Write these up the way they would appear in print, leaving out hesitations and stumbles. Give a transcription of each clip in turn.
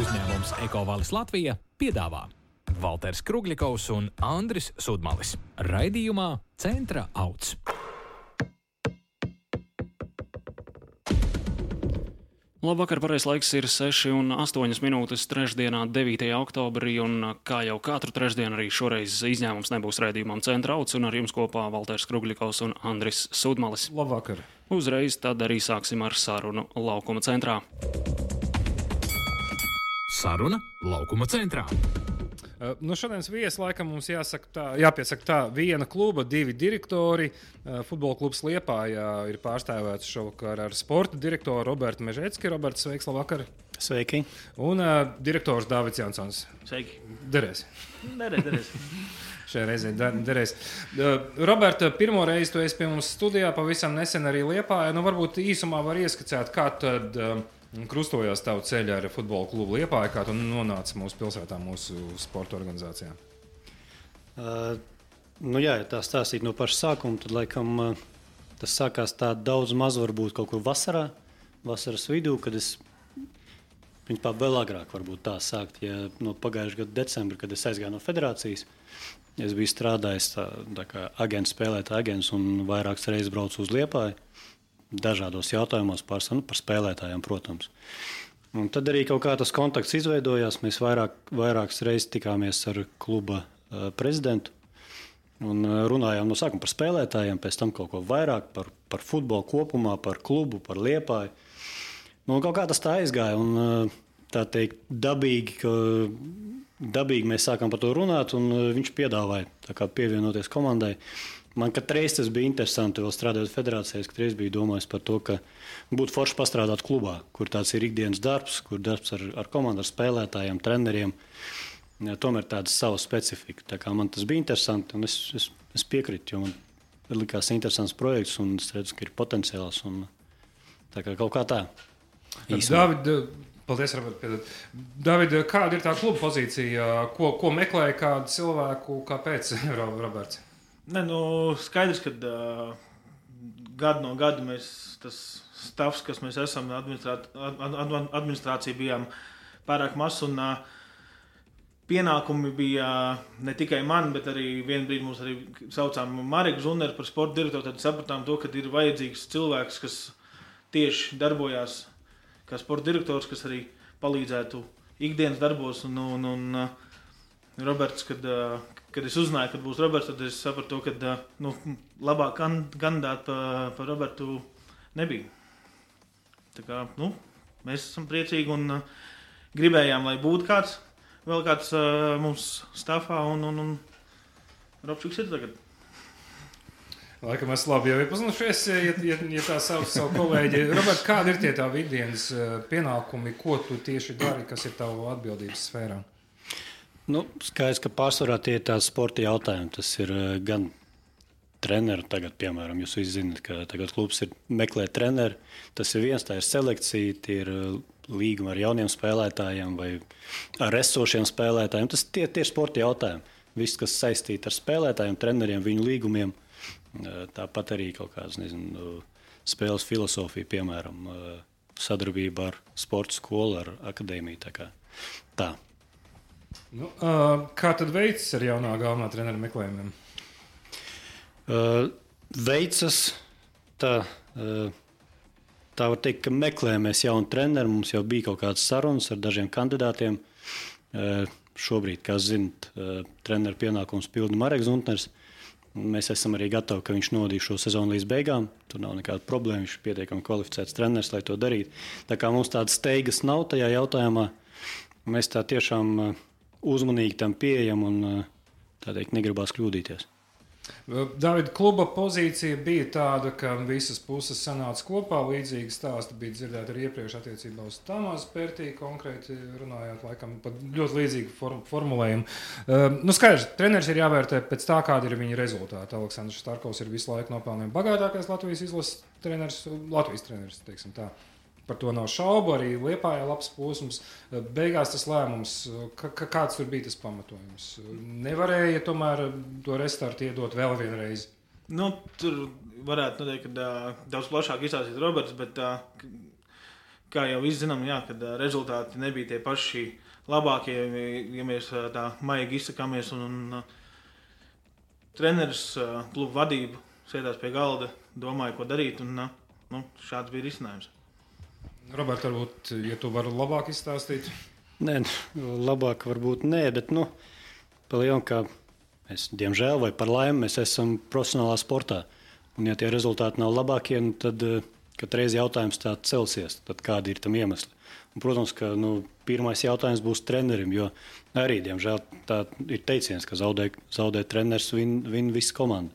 Uzņēmums Ekovalis Latvija piedāvā Valters Krugļikovs un Andris Sudmalis. Raidījumā Centra auts. Labvakar, pareizais laiks ir 6:08 trešdienā, 9. oktobrī, un kā jau katru trešdienu arī šoreiz izņēmums nebūs raidījumam Centra auts, un ar jums kopā Valters Krugļikovs un Andris Sudmalis. Labvakar! Uzreiz tad arī sāksim ar sarunu Laukuma centrā. Saruna Laukuma centrā. Šodienas viesi laikam mums jāpiesaka tā, viena kluba, divi direktori. Futbola klubs Liepājā ir pārstāvēts šovakar ar sporta direktoru Robertu Mežecki. Roberts, sveiks, labvakar! Sveiki! Un direktors Dāvids Jansons. Sveiki! Derēs. Derēs. Šajā reizē derēs. Roberta, pirmo reizi tu esi pie mums studijā, pavisam nesen arī Liepājā. Varbūt īsumā var ieskicēt, kā tad krustojās tavu ceļu ar futbola klubu Liepāju, kā tu nonāci mūsu pilsētā, mūsu sporta organizācijā? Ja tā stāstīt no paša sākuma, tad laikam tas sākās tā daudz maz varbūt kaut kur vasaras vidū, kad es principā vēl agrāk varbūt tā sākt, ja no pagājušā gada decembra, kad es aizgāju no federācijas. Es biju strādājis tā kā agents, spēlētāja agents un vairākas reizes braucu uz Liepāju. Dažādos jautājumos par spēlētājiem, protams. Un tad arī kaut kā tas kontakts izveidojās. Mēs vairākas reizes tikāmies ar kluba prezidentu un runājām no sākuma par spēlētājiem, pēc tam kaut ko vairāk par futbolu kopumā, par klubu, par Liepāju. Kaut kā tas tā aizgāja un tā teikt dabīgi mēs sākām par to runāt un viņš piedāvāja tā kā pievienoties komandai. Man katreiz tas bija interesanti, vēl strādājot federācijās, katreiz biju domājis par to, ka būtu forši pastrādāt klubā, kur tāds ir ikdienas darbs, kur darbs ar komandu, ar spēlētājiem, treneriem. Ja, tomēr tāda sava specifika. Tā kā man tas bija interesanti, un es piekrītu, jo man likās interesants projekts, un es redzu, ka ir potenciāls. Un, tā kā kaut kā tā. Paldies, Robert. David, kāda ir tā kluba pozīcija? Ko meklēja kādu cilvēku? Kāpēc, Roberts? Skaidrs, ka gadu no gada mēs, tas stāvs, kas mēs esam, administrācija bijām pārāk maz, un pienākumi bija ne tikai man, bet arī vienu brīdi mums arī saucām Mareku Zunneru par sporta direktoru, tad sapratām to, ka ir vajadzīgs cilvēks, kas tieši darbojās kā sporta direktors, kas arī palīdzētu ikdienas darbos, un Roberts, kad es uzzināju, kad būs Roberts, tad es sapratu, ka labāk kandidāti par Robertu nebija. Tā kā, mēs esam priecīgi un gribējām, lai būtu vēl kāds mums stāvā, un Robčiks ir tagad. Laikam es labi jau iepazinušies, ja tā sauc savu kolēģi. Robert, kādi ir tie tavi ikdienas pienākumi, ko tu tieši dari, kas ir tavu atbildības sfērā? Skaidrs, ka pārsvarā tie ir tādi sporta jautājumi. Tas ir gan treneri, tagad, piemēram, jūs visi zināt, ka tagad klubs meklē treneri. Tas ir viens, tā ir selekcija, tie ir līgumi ar jauniem spēlētājiem vai ar esošiem spēlētājiem. Tie ir sporta jautājumi. Viss, kas saistīti ar spēlētājiem, treneriem, viņu līgumiem. Tāpat arī kaut kāds, spēles filosofija, piemēram, sadarbība ar sporta skolu, ar akadēmiju. Tā. Kā tad veicas ar jaunā galvenā trenera meklējumiem? Veicas tā var teikt, ka meklējamies jaunu treneru. Mums jau bija kaut kādas sarunas ar dažiem kandidātiem. Šobrīd, kā zinat, treneru pienākums pilda Mareks Zuntners. Mēs esam arī gatavi, ka viņš nodīs šo sezonu līdz beigām. Tur nav nekāda problēma, viņš ir pietiekami kvalificēts treneris, lai to darītu. Tā kā mums tādas steigas nav tajā jautājumā, mēs tā tiešām uzmanīgi tam pieejam un tā teikt negribās kļūdīties. David, kluba pozīcija bija tāda, ka visas puses sanāca kopā. Līdzīgi stāsti bija dzirdēti arī iepriekš attiecībā uz Tamāzu Pērtī, konkrēti runājot, laikam, pat ļoti līdzīgi formulējumu. Skaidrs, treneris ir jāvērtē pēc tā, kāda ir viņa rezultāti. Aleksandrs Starkovs ir visu laiku nopelnījis bagātākais Latvijas izlases treneris, teiksim tā. Par to nav šaubu, arī Liepājā labs posms. Beigās tas lēmums, kāds tur bija tas pamatojums? Nevarēja tomēr to restartu iedot vēl vienreiz? Tur varētu noteikti daudz plašāk izstāstīt Roberts, bet kā jau visi zinām, jā, kad rezultāti nebija tie paši labākie, ja mēs tā maigi izsakāmies. Un treneris, klubu vadība sēdās pie galda, domāja, ko darīt, un šāds bija risinājums. Robert, varbūt, ja tu vari labāk izstāstīt? Nē, labāk varbūt nē, bet, pa lielam, kā mēs, diemžēl, vai par laimi, mēs esam profesionālā sportā. Un, ja tie rezultāti nav labākie, tad katreiz jautājums tāds celsies, tad kādi ir tam iemesli. Un, protams, ka pirmais jautājums būs trenerim, jo arī, diemžēl, tā ir teiciens, ka zaudē treneris, vin visa komanda.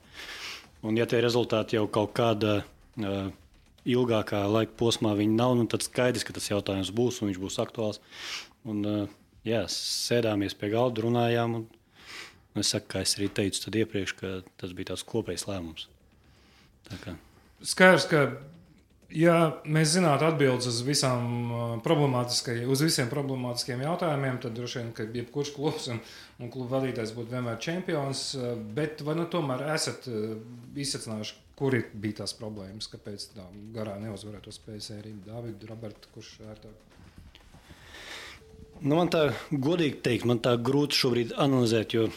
Un, ja tie rezultāti jau kaut kādā ilgākā laika posmā viņi nav, tad skaidrs, ka tas jautājums būs un viņš būs aktuāls. Un, sēdāmies pie galda, runājām. Un es saku, kā es arī teicu tad iepriekš, ka tas bija tāds kopējs lēmums. Skaidrs, ka ja mēs zinātu atbildes uz visiem problemātiskiem jautājumiem, tad droši vien, ka jebkurš klubs un klubu vadītājs būtu vienmēr čempions. Bet vai tomēr esat izsacinājuši, kuri bija tās problēmas, kāpēc tā garā neuzvarētos spēļu sēriju? Dāvid, Robert, kurš ērtāk? Man tā godīgi teikt, man tā grūti šobrīd analizēt, jo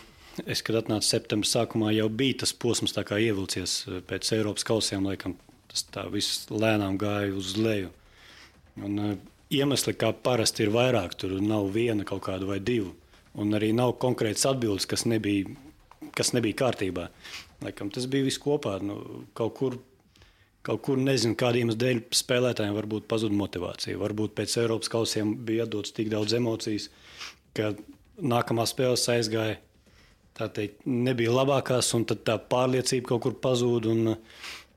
es, kad atnācu septembra sākumā, jau bija tas posms tā kā ievilcies pēc Eiropas kausiem, laikam tas tā viss lēnām gāja uz leju. Un iemesli, kā parasti ir vairāk, tur nav viena kaut kāda vai divu, un arī nav konkrētas atbildes, kas nebija kārtībā. Laikam tas bija viss kopā, kaut kur nezinu, kādiem dēļ spēlētājiem varbūt pazuda motivācija. Varbūt pēc Eiropas kausiem bija atdots tik daudz emocijas, ka nākamā spēles aizgāja, tā teikt, nebija labākās, un tad tā pārliecība kaut kur pazūda.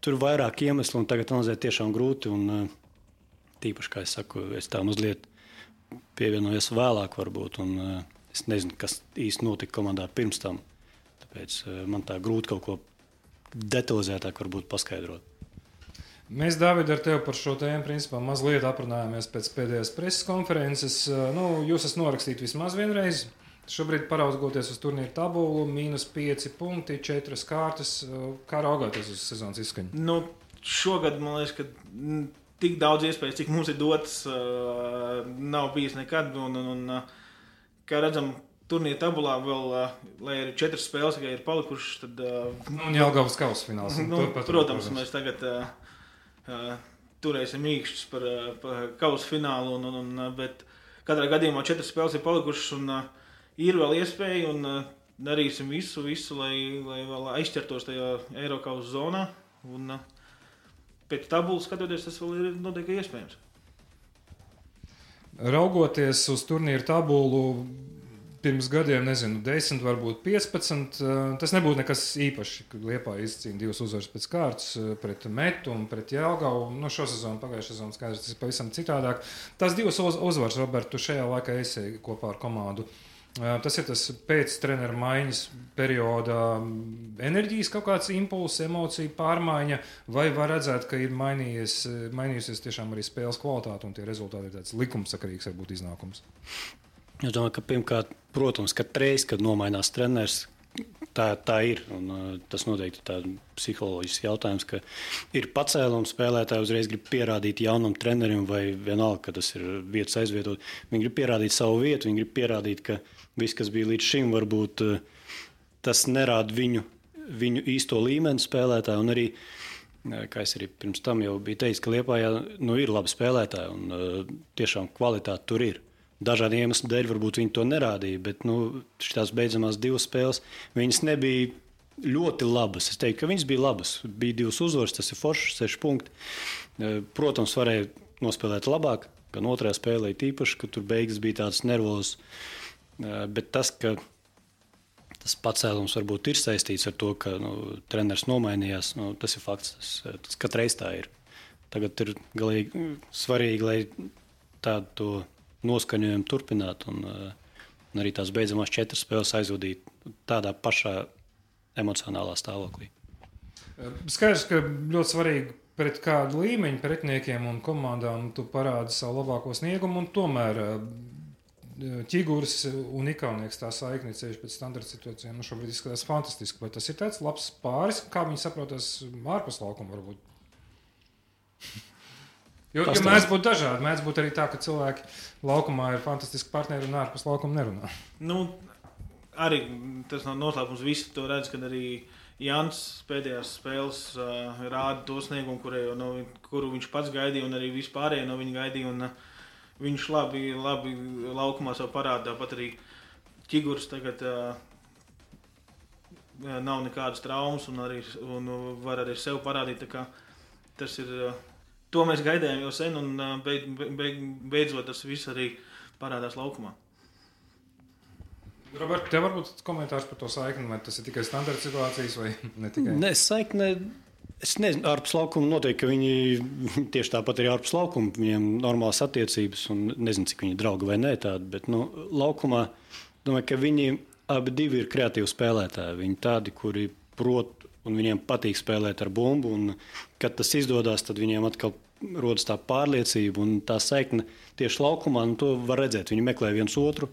Tur vairāk iemeslu, un tagad analizēt tiešām grūti. Un, tīpaši, kā es saku, es tā mazliet pievienojos vēlāk varbūt, un es nezinu, kas īsti notika komandā pirms tam. Tāpēc man tā grūti kaut ko detalizētāk varbūt paskaidrot. Mēs, Dāvid, ar tevi par šo tēmu principā mazliet aprunājāmies pēc pēdējās preses konferences. Jūs esat norakstīti vismaz vienreiz. Šobrīd paraugoties uz turnīru tabulu, -5 punkti, 4 kārtas. Kā raugāties uz sezonas izskaņu? Šogad, man liekas, ka tik daudz iespējas, cik mums ir dotas, nav bijis nekad. Un, kā redzam, turnīra tabulā vēl, lai arī 4 spēles tikai ir palikušas, tad... Jelgavas kausa fināls. Protams, mēs tagad turēsim īkšķus par kausa finālu, bet katrā gadījumā 4 spēles ir palikušas un ir vēl iespēja un darīsim visu, lai vēl aizķertos tajā Eirokausa zonā. Un pēc tabulas skatoties, tas vēl ir noteikti iespējams. Raugoties uz turnīru tabulu, pirms gadiem, 10, varbūt 15. Tas nebūtu nekas īpašs, kad Liepāja izcīna 2 uzvaras pēc kārtas pret Metu un pret Jelgavu. Šo sezonu, pagājušā sezonu skaidrs, tas ir pavisam citādāk. Tās 2 uzvaras, Robert, tu šajā laikā esi kopā ar komandu. Tas ir tas pēc treneru maiņas perioda enerģijas kaut kāds impulss, emocija pārmaiņa, vai var redzēt, ka ir mainījusies tiešām arī spēles kvalitāte un tie rezultāti ir tāds likumsakarīgs varbūt iznākums? Es domāju, ka pirmkārt, protams, katreiz, kad nomainās treneris, tā ir. Un, tas noteikti ir tāds psiholoģisks jautājums, ka ir pacēlums, spēlētāji uzreiz grib pierādīt jaunam trenerim, vai vienalga, ka tas ir vietas aizvietot. Viņi grib pierādīt savu vietu, viņi grib pierādīt, ka viss, kas bija līdz šim, varbūt tas nerāda viņu īsto līmeni spēlētāju. Un arī, kā es arī pirms tam jau biju teicis, ka Liepājā ir labi spēlētāji un tiešām kvalitāte tur ir. Dažādi iemesli dēļ varbūt viņi to nerādīja, bet šīs beidzamās 2 spēles viņas nebija ļoti labas. Es teiktu, ka viņas bija labas. Bija 2 uzvaras, tas ir foršs, 6 punkti. Protams, varēja nospēlēt labāk, gan otrajā spēlē tīpaši, ka tur beigas bija tādas nervozas. Bet tas, ka tas pacēlums varbūt ir saistīts ar to, ka treneris nomainījās, tas ir fakts. Tas katreiz tā ir. Tagad ir galīgi svarīgi, lai tādu noskaņojumu turpinātu un arī tās beidzamās 4 spēles aizvadītu tādā pašā emocionālā stāvoklī. Skaidrs, ka ļoti svarīgi pret kādu līmeņu pretiniekiem un komandām tu parādi savu labāko sniegumu, un tomēr Ķigurs un Ikaunieks tā saikni ceļš pēc standarta situācijām šobrīd izskatās fantastiski. Vai tas ir tāds labs pāris, kā viņi saprotas ārpus laukuma varbūt? Jo mēdz būt dažādi. Mēdz būt arī tā, ka cilvēki laukumā ir fantastiski partneri un ārpus laukuma nerunā. Arī tas nav noslēpums. Visi to redz, kad arī Jānis pēdējās spēles rāda to sniegumu, kuru viņš pats gaidīja, un arī vispārējie no viņa gaidīja. Un, viņš labi laukumā sev parāda. Tāpat arī Ķigurs tagad nav nekādas traumas un var arī sev parādīt. Tas ir... To mēs gaidījām jau sen, un beidzot tas viss arī parādās laukumā. Robert, tev varbūt komentārs par to saikni, vai tas ir tikai standarta situācijas vai ne tikai? Nē, saikne, es nezinu, ārpus laukuma noteikti, ka viņi tieši tāpat arī ārpus laukuma, viņiem normālas attiecības, un nezinu, cik viņi draugi vai nē tādi, bet laukumā, domāju, ka viņi abi divi ir kreatīvi spēlētāji. Viņi tādi, kuri prot, un viņiem patīk spēlēt ar bumbu, un kad tas izdodas, tad viņiem atkal rodas tā pārliecība un tā saikne tieši laukumā, un to var redzēt. Viņi meklē viens otru.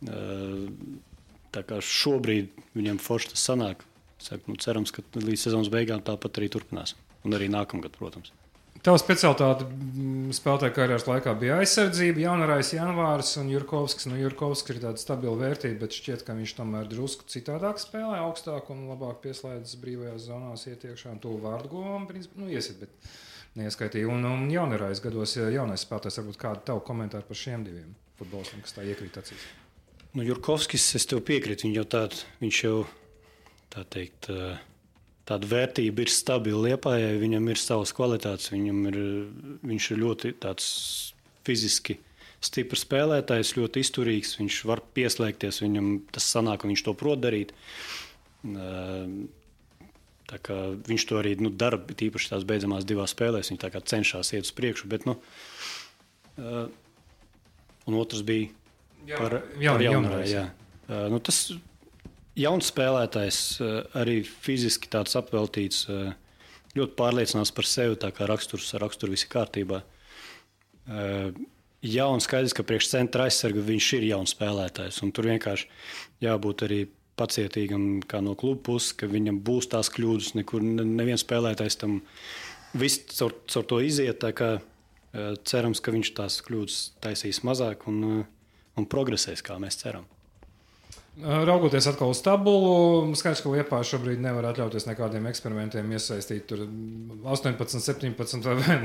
Tā kā šobrīd viņiem forši tas sanāk. Cerams, ka līdz sezonas beigām tāpat arī turpinās. Un arī nākamgad, protams. Tava specialitāte spēlētāja karjeras laikā bija aizsardzība, Jaunarais, Janvārs un Jurkovskis. Jurkovskis ir tāda stabila vērtība, bet šķiet, ka viņš tomēr drusku citādāk spēlē, augstāk un labāk pieslēdzas brīvajās zonās ietiekšā. Un to vārdu govam, principā, iesit, bet neieskaitīja. Un Jaunarais gados, jaunais spēlētājs, varbūt kādu tavu komentāru par šiem diviem futbolistiem, kas tā iekrīt acīs. Jurkovskis, es tev piekrītu, viņš jau tā teikt... Tāda vērtība ir stabila Liepājai, viņam ir savas kvalitātes, viņš ir ļoti tāds fiziski stiprs spēlētājs, ļoti izturīgs, viņš var pieslēgties, viņam tas sanāk, un viņš to prot darīt. Tā kā viņš to arī dara, tīpaši tās beidzamās divās spēlēs, viņš tā kā cenšas iet uz priekšu, bet, un otrs bija par Jaunarais. Tas jauns spēlētājs, arī fiziski tāds apveltīts, ļoti pārliecinās par sevi, tā kā raksturu visi kārtībā. Jauns skaidrs, ka priekš centra aizsarga viņš ir jauns spēlētājs, un tur vienkārši jābūt arī pacietīgam kā no kluba puses, ka viņam būs tās kļūdas, nekur neviens spēlētājs tam viss caur to iziet, tā kā cerams, ka viņš tās kļūdas taisīs mazāk un progresēs, kā mēs ceram. Raugoties atkal uz tabulu, skaidrs, ka Liepāja šobrīd nevar atļauties nekādiem eksperimentiem iesaistīt tur 18, 17 vai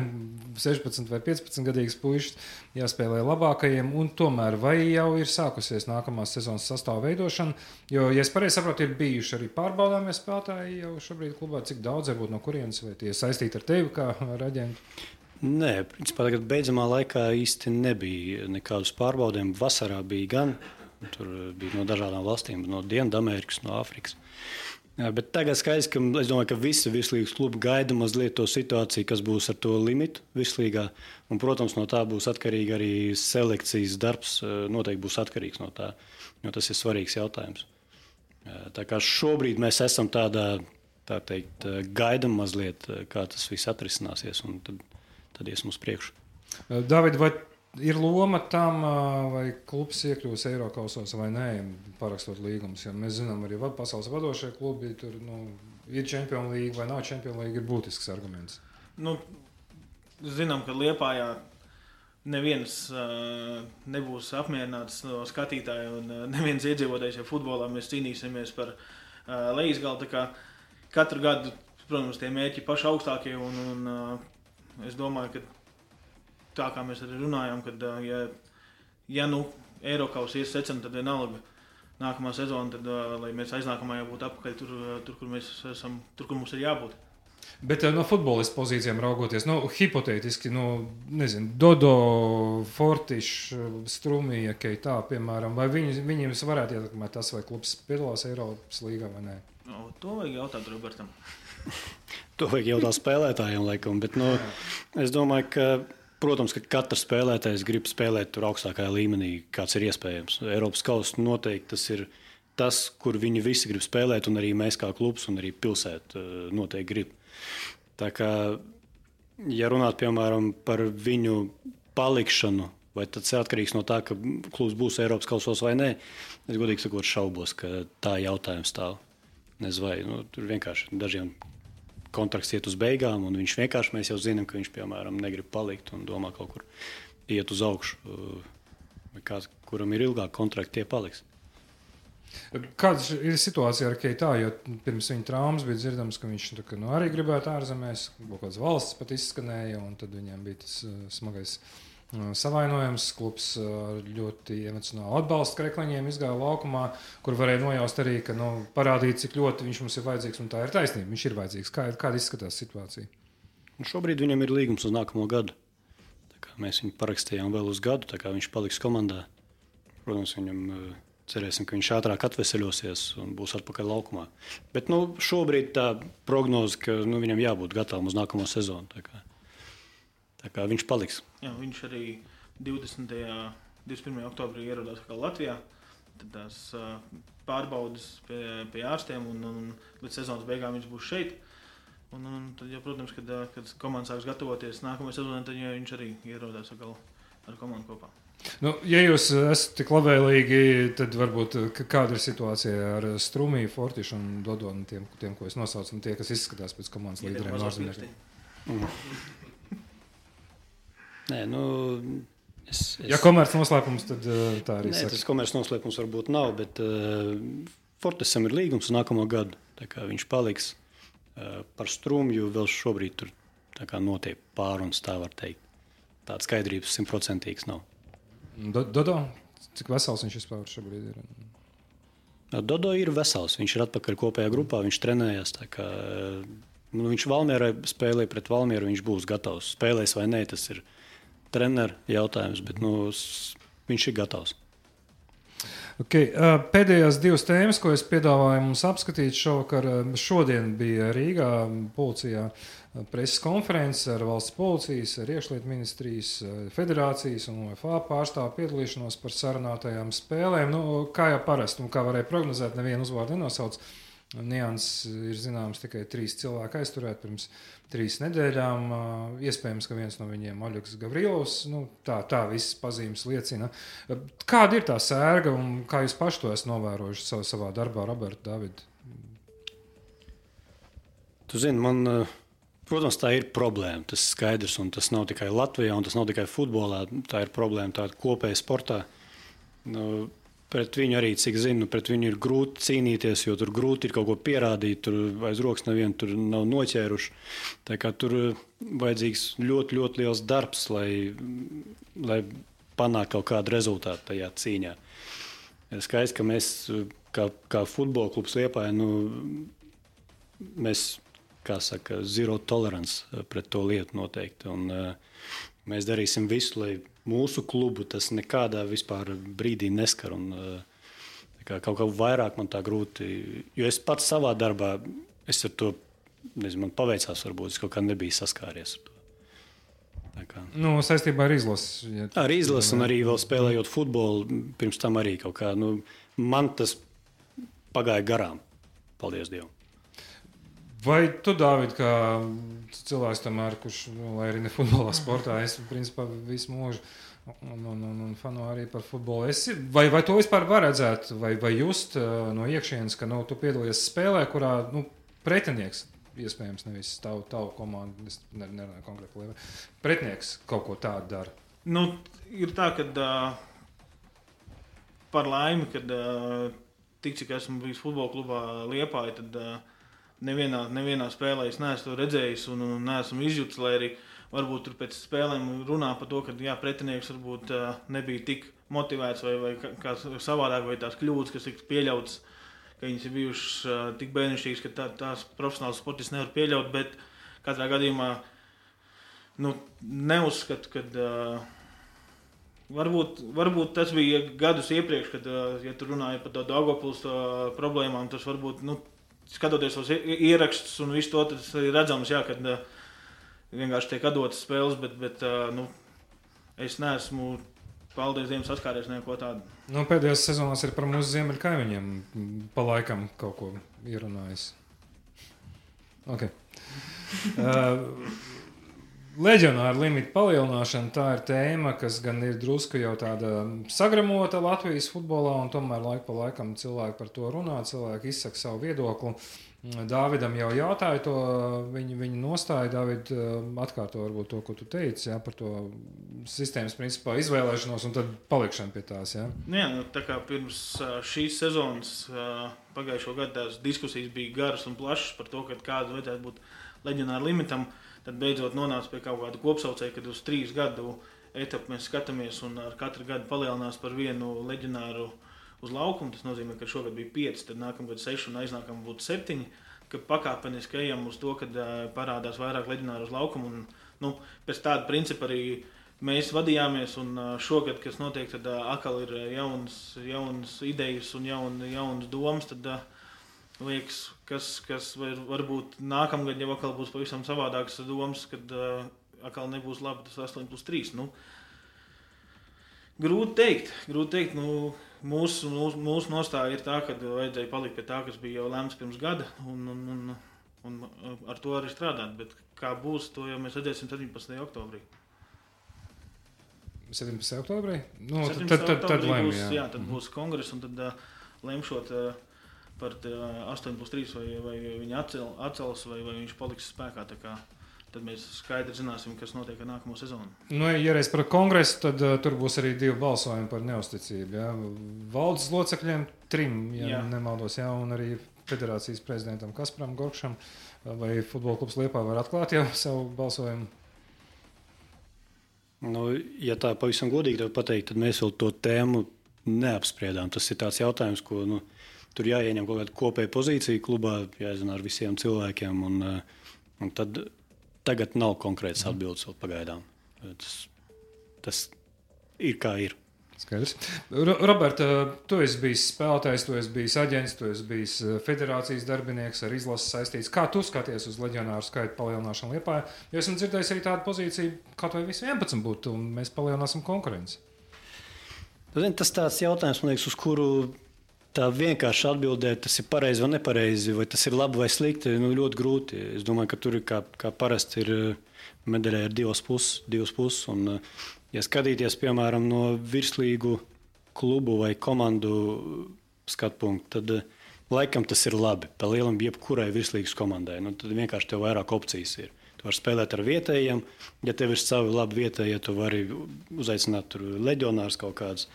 16 vai 15 gadīgas puišas jāspēlē labākajiem, un tomēr vai jau ir sākusies nākamās sezonas sastāva veidošana, jo, ja es pareizi saprotu, ir bijuši arī pārbaudāmie spēlētāji jau šobrīd klubā, cik daudz varbūt no kurienes, vai tie saistīti ar tevi kā ar aģentu? Nē, principā tagad beidzamā laikā īsti nebija nekādus pārbaudēm, vasarā bija gan. Tur bija no dažādām valstīm, no Dienvidamerikas, no Āfrikas. Bet tagad skaidrs, ka es domāju, ka visi virslīgas klubi gaida mazliet to situāciju, kas būs ar to limitu virslīgā. Un, protams, no tā būs atkarīgi arī selekcijas darbs, noteikti būs atkarīgs no tā, jo tas ir svarīgs jautājums. Tā kā šobrīd mēs esam tādā, tā teikt, gaidam mazliet, kā tas viss atrisināsies, un tad iesim uz priekšu. David, vai ir loma tam, vai klubs iekļūs Eirokausos vai nē, parakstot līgumus? Jo mēs zinām, arī pasaules vadošie klubi tur ir Champions League vai nav Champions League, ir būtisks arguments. Zinām, ka Liepājā neviens nebūs apmierināts no skatītāja un neviens iedzīvotājs futbolā. Mēs cīnīsimies par lejasgalu. Katru gadu, protams, tie mērķi paši augstākie un es domāju, ka tā kā mēs arī runājām, kad ja Eirokaus ies secam, tad vienalga nākamā sezona, tad lai mēs aiznākamā jau būtu apakaļ tur, kur mēs esam, tur, kur mums ir jābūt. Bet no futbolista pozīcijām raugoties, hipotētiski, nezinu, Dodo, Fortiš, Strumija, Keitā, piemēram, vai viņiem varētu ietekmēt tas, vai klubs piedalās Eiropas līgā vai nē? To vajag jautāt Robertam. To vajag jautāt spēlētājiem, laikam, bet es domāju, ka protams, ka katrs spēlētājs grib spēlēt tur augstākajā līmenī, kāds ir iespējams. Eiropas kausa noteikti tas ir tas, kur viņi visi grib spēlēt, un arī mēs kā klubs, un arī pilsēta noteikti grib. Tā kā, ja runāt, piemēram, par viņu palikšanu, vai tas ir atkarīgs no tā, ka klubs būs Eiropas kausos vai nē, es godīgi sakot šaubos, ka tā jautājums stāv. Nezinu, vai tur vienkārši dažiem kontrakts iet uz beigām, un viņš vienkārši, mēs jau zinām, ka viņš, piemēram, negrib palikt un domā kaut kur iet uz augšu. Vai kāds, kuram ir ilgāk kontrakti, tie paliks. Kāda ir situācija ar Keitā, jo pirms viņa traumas bija dzirdams, ka viņš arī gribētu ārzemēs, kaut kādas valsts pat izskanēja, un tad viņam bija tas smagais savainojums. Klubs ļoti emocionāli atbalsta Krekliņiem izgāja laukumā, kur varēja nojaust arī, ka parādīt, cik ļoti viņš mums ir vajadzīgs, un tā ir taisnība. Viņš ir vajadzīgs. Kāda izskatās situācija? Un šobrīd viņam ir līgums uz nākamo gadu. Tā kā mēs viņu parakstījām vēl uz gadu, tā kā viņš paliks komandā. Protams, viņam cerēsim, ka viņš ātrāk atveseļosies un būs atpakaļ laukumā. Bet šobrīd tā prognoze, ka viņam jābūt gatavam uz nākamo sezonu. Tā kā viņš paliks. Jā, viņš arī 21. oktobrī ierodās Latvijā. Tad tās pārbaudas pie ārstiem un līdz sezonas beigām viņš būs šeit. Un tad, jau, protams, kad komanda sāks gatavoties nākamajai sezonai, tad viņš arī ierodās ar komandu kopā. Ja jūs esat tik labvēlīgi, tad varbūt kāda ir situācija ar Strumiju, Fortišu un Dodonu, tiem, ko es nosaucu, un tie, kas izskatās pēc komandas līderiem ārzemniekiem? Nē, Ja komerc noslēpums, tad tā arī saka. Tas komerc noslēpums varbūt nav, bet Fortisam ir līgums uz nākamo gadu. Tā kā viņš paliks par Strumju, vēl šobrīd tur notiek pārunas, tā var teikt. Tāda skaidrības 100% nav. Dodo, cik vesels viņš vispār šobrīd ir? Dodo ir vesels, viņš ir atpakaļ kopējā grupā, viņš trenējas. Viņš Valmierai spēlēja pret Valmieru, viņš būs gatavs. Spēlēs vai nē, tas ir treneru jautājums, bet viņš ir gatavs. Okay. Pēdējās divas tēmas, ko es piedāvāju mums apskatīt šovakar, šodien bija Rīgā policijā preses konferences ar valsts policijas, ar iekšlietu ministrijas, federācijas un UEFA pārstāvu piedalīšanos par sarunātajām spēlēm. Kā jau parasti, kā varēja prognozēt, nevienu uzvārdu nenosauc. Nianses ir zināms tikai 3 cilvēki aizturēti pirms 3 nedēļām. Iespējams, ka viens no viņiem Oļegs Gavrilovs. Tā visas pazīmes liecina. Kāda ir tā sērga un kā jūs paši to esat novērojuši savā darbā, Roberta, Davida? Tu zini, protams, tā ir problēma. Tas ir skaidrs, un tas nav tikai Latvijā, un tas nav tikai futbolā. Tā ir problēma tāda kopēja sportā. Pret viņu arī, cik zinu, pret viņu ir grūti cīnīties, jo tur grūti ir kaut ko pierādīt, tur aiz rokas nevienu tur nav noķēruši. Tā kā tur vajadzīgs ļoti, ļoti liels darbs, lai panāktu kaut kādu rezultātu tajā cīņā. Skaidrs, ka mēs, kā futbola klubs Liepāja, mēs, kā saka, zero tolerance pret to lietu noteikti. Un mēs darīsim visu, lai mūsu klubu tas nekādā vispār brīdī neskar. Kaut kā vairāk man tā grūti, jo es pats savā darbā, es ar to, nezinu, man paveicās varbūt, es kaut kā nebiju saskāries ar to. Saistībā ar izlases. Ar izlases un arī vēl spēlējot futbolu, pirms tam arī kaut kā, man tas pagāja garām, paldies Dievam. Vai tu, Dāvid, kā cilvēks tomēr, kurš, lai arī ne futbolā sportā, es principā visu mūžu un fanu arī par futbolu. Vai to vispār var redzēt, vai just no iekšienes, ka tu piedalies spēlē, kurā pretinieks, iespējams nevis tavu komandu, es nerunāju konkrēti, pretinieks kaut ko tādu dara? Ir tā, ka par laimi, kad tik cik esmu bijis futbola klubā Liepāja, tad nevienā spēlē es neesmu to redzējis un neesmu izjūtis, lai arī varbūt tur pēc spēlēm runā par to, ka pretinieks varbūt nebija tik motivēts vai kā savādāk, vai tās kļūdas, kas tika pieļautas, ka viņas ir bijušas tik bērnišķīgas, ka tās profesionāls sportists nevar pieļaut, bet katrā gadījumā neuzskatu, ka varbūt tas bija gadus iepriekš, kad, ja tu runāji par to Daugavpils problēmām, tas varbūt, skatoties uz ierakstus un visu to, tas arī redzams, kad vienkārši tiek atdotas spēles, bet es neesmu, paldies Dievam, saskāries neko tādu. Pēdējās sezonās ir par mūsu ziemeļu kaimiņiem pa laikam kaut ko ierunājis. Okay. Leģionāru limitu palielināšana, tā ir tēma, kas gan ir drusku jau tāda sagramota Latvijas futbolā, un tomēr laiku pa laikam cilvēki par to runā, cilvēki izsaka savu viedokli. Dāvidam jau jautāja to viņa nostāju. Dāvid, atkārto varbūt to, ko tu teici, par to sistēmas principā izvēlēšanos un tad palikšanu pie tās. Jā, tā kā pirms šīs sezonas pagājušo gadu tās diskusijas bija garas un plašas par to, kāda vajadzētu būt leģionāra limitam, tad beidzot nonāca pie kaut kāda kopsaucēja, kad uz 3 gadu etapu mēs skatāmies un ar katru gadu palielinās par vienu leģionāru uz laukumu. Tas nozīmē, ka šogad bija 5, tad nākamgad 6 un aiznākamgad būtu 7, ka pakāpeniski ejam uz to, kad parādās vairāk leģionāru uz laukumu. Un, pēc tāda principa arī mēs vadījāmies, un šogad, kas notiek, tad atkal ir jaunas idejas un jaunas domas, tad liekas, kas varbūt nākamgad jau atkal būs pavisam savādākas domas, kad atkal nebūs labi tas 8+3. Grūti teikt. Mūsu nostāja ir tā, ka vajadzēja palikt pie tā, kas bija jau lemts pirms gada, un ar to arī strādāt. Bet kā būs, to jau mēs redzēsim 17. oktobrī. 17. oktobrī? Tad būs, tad būs kongress, un tad lemšot par 8+3, vai viņi atcels, vai viņš paliks spēkā. Tad mēs skaidri zināsim, kas notiek ar nākamo sezonu. Ja reiz par kongresu, tad tur būs arī 2 balsojumi par neusticību. Ja? Valdes locekļiem 3, nemaldos, un arī federācijas prezidentam Kasparam Gorkšam. Vai futbola klubs Liepā var atklāt jau savu balsojumu? Ja tā pavisam godīgi tev pateikt, tad mēs vēl to tēmu neapspriedām. Tas ir tāds jautājums, ko tur jāieņem kaut kāda kopēja pozīcija klubā, jāzina ar visiem cilvēkiem. Un tad tagad nav konkrētas atbildes vēl pagaidām. Tas ir kā ir. Skaidrs. Roberta, tu esi bijis spēlētājs, tu esi bijis aģents, tu esi bijis federācijas darbinieks, ar izlases saistīts. Kā tu skaties uz leģionāru skaitu palielināšanu Liepājā? Jo esmu dzirdējis arī tādu pozīciju, kā vai visi 11 būtu, un mēs palielināsim konkurenci. Tas tāds jautājums, man liekas, uz kuru tā vienkārši atbildēt, tas ir pareizi vai nepareizi, vai tas ir labi vai slikti, ļoti grūti. Es domāju, ka tur ir kā parasti ir medaļai ar 2 puses. Un, ja skatīties, piemēram, no virslīgu klubu vai komandu skatu punktu, tad laikam tas ir labi. Pa lielam jebkurai virslīgas komandai. Tad vienkārši tev vairāk opcijas ir. Tu vari spēlēt ar vietējiem. Ja tev ir savi labi vietējie, tu vari uzaicināt tur leģionārus kaut kādus.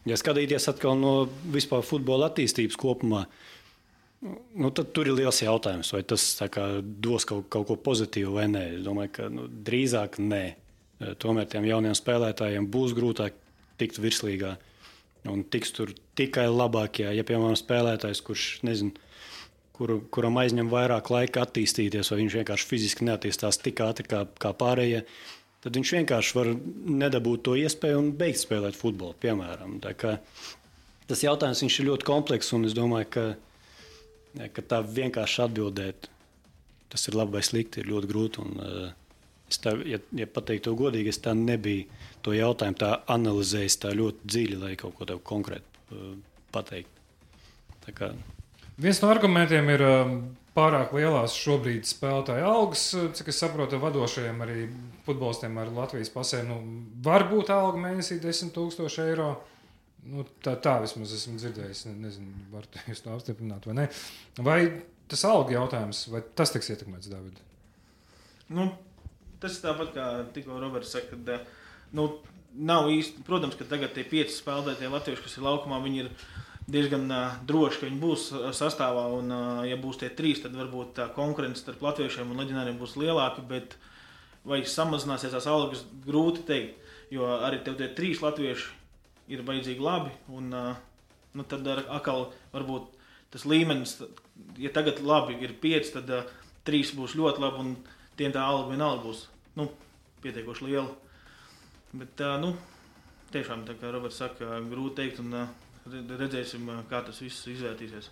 Ja skatīties atkal no vispār futbola attīstības kopumā, tad tur ir liels jautājums, vai tas dos kaut ko pozitīvu vai nē. Es domāju, ka drīzāk nē. Tomēr tiem jauniem spēlētājiem būs grūtāk tikt virslīgā un tiks tur tikai labākie. Ja, piemēram, spēlētājs, kurš nezinu, kuram aizņem vairāk laika attīstīties, vai viņš vienkārši fiziski neattīstās tik ātri kā pārējie, tad viņš vienkārši var nedabūt to iespēju un beigt spēlēt futbolu, piemēram. Tas jautājums ir ļoti komplekss, un es domāju, ka tā vienkārši atbildēt, tas ir labi vai slikti, ir ļoti grūti. Ja pateikt to godīgi, es tā nebiju to jautājumu tā analizējis tā ļoti dziļi, lai kaut ko tev konkrēti pateikt. Viens no argumentiem ir pārāk lielās šobrīd spēlētāju algas, cik es saprotu, vadošajiem arī futbolistiem ar Latvijas pasēm. Var būt alga mēnesī 10,000 eiro. Tā vismaz esmu dzirdējis. Nezinu, var jūs to apstiprināt vai ne. Vai tas alga jautājums, vai tas tiks ietekmēts, Dāvid? Tas ir tāpat, kā tikko Roberts saka, ka nav īsti, protams, ka tagad tie 5 spēlētāji latvieši, kas ir laukumā, viņi ir diezgan droši, ka viņi būs sastāvā, un ja būs tie 3, tad varbūt tā konkurence starp latviešiem un leģionāriem būs lielāka, bet vai samazināsies tās algas, grūti teikt, jo arī tev tie 3 latvieši ir vajadzīgi labi, un tad atkal varbūt tas līmenis, ja tagad labi ir 5, tad 3 būs ļoti labi, un tiem tā alga vienalga būs pietiekoši liela. Bet tiešām, tā kā Roberts saka, grūti teikt, un redzēsim, kā tas viss izvērtīsies.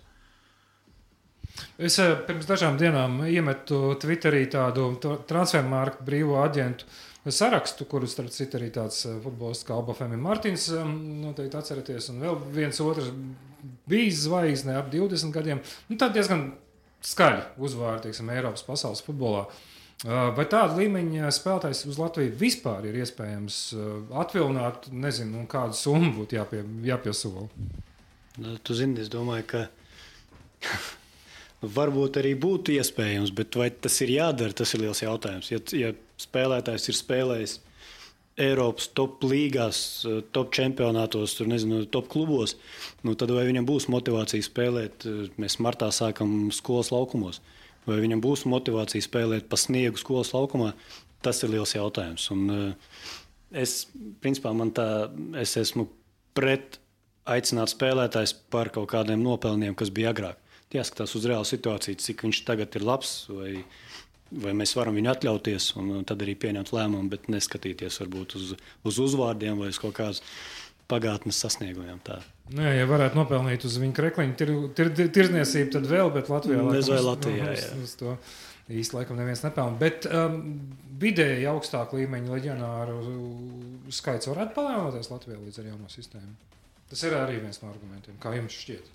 Es pirms dažām dienām iemetu Twitterī tādu transfermarktu brīvo aģentu sarakstu, kuru starp citu arī tāds futbolists kā Alba Femi Martins, noteikti atceraties, un vēl viens otrs bijis zvaigzne ap 20 gadiem. Tad diezgan skaļi uzvārdi, teiksim, Eiropas pasaules futbolā. Vai tāda līmeņa spēlētājs uz Latviju vispār ir iespējams atvilināt, nezinu, un kādu summu būtu jāpiesola? Tu zini, es domāju, ka varbūt arī būtu iespējams, bet vai tas ir jādara, tas ir liels jautājums. Ja spēlētājs ir spēlējis Eiropas top līgās, top čempionātos, tur, nezinu, top klubos, tad vai viņam būs motivācija spēlēt, mēs martā sākam skolas laukumos, vai viņam būs motivācija spēlēt pa sniegu skolas laukumā, tas ir liels jautājums. Un principā, es esmu pret aicināt spēlētājs par kaut kādiem nopelniem, kas bija agrāk. Jāskatās uz reālu situāciju, cik viņš tagad ir labs, vai mēs varam viņu atļauties, un tad arī pieņemt lēmumu, bet neskatīties varbūt uz uzvārdiem vai uz kaut kādas pagātnes sasniegumiem. Nē, ja varētu nopelnīt uz viņa krekliņu tirzniecību, tad vēl, bet Latvijā uz to īsti laikam neviens nepelna. Bet vidēji augstāk līmeņa leģionāru skaits varētu palielināties Latvijā līdz ar jauno sistēmu. Tas ir arī viens no argumentiem, kā jums šķiet.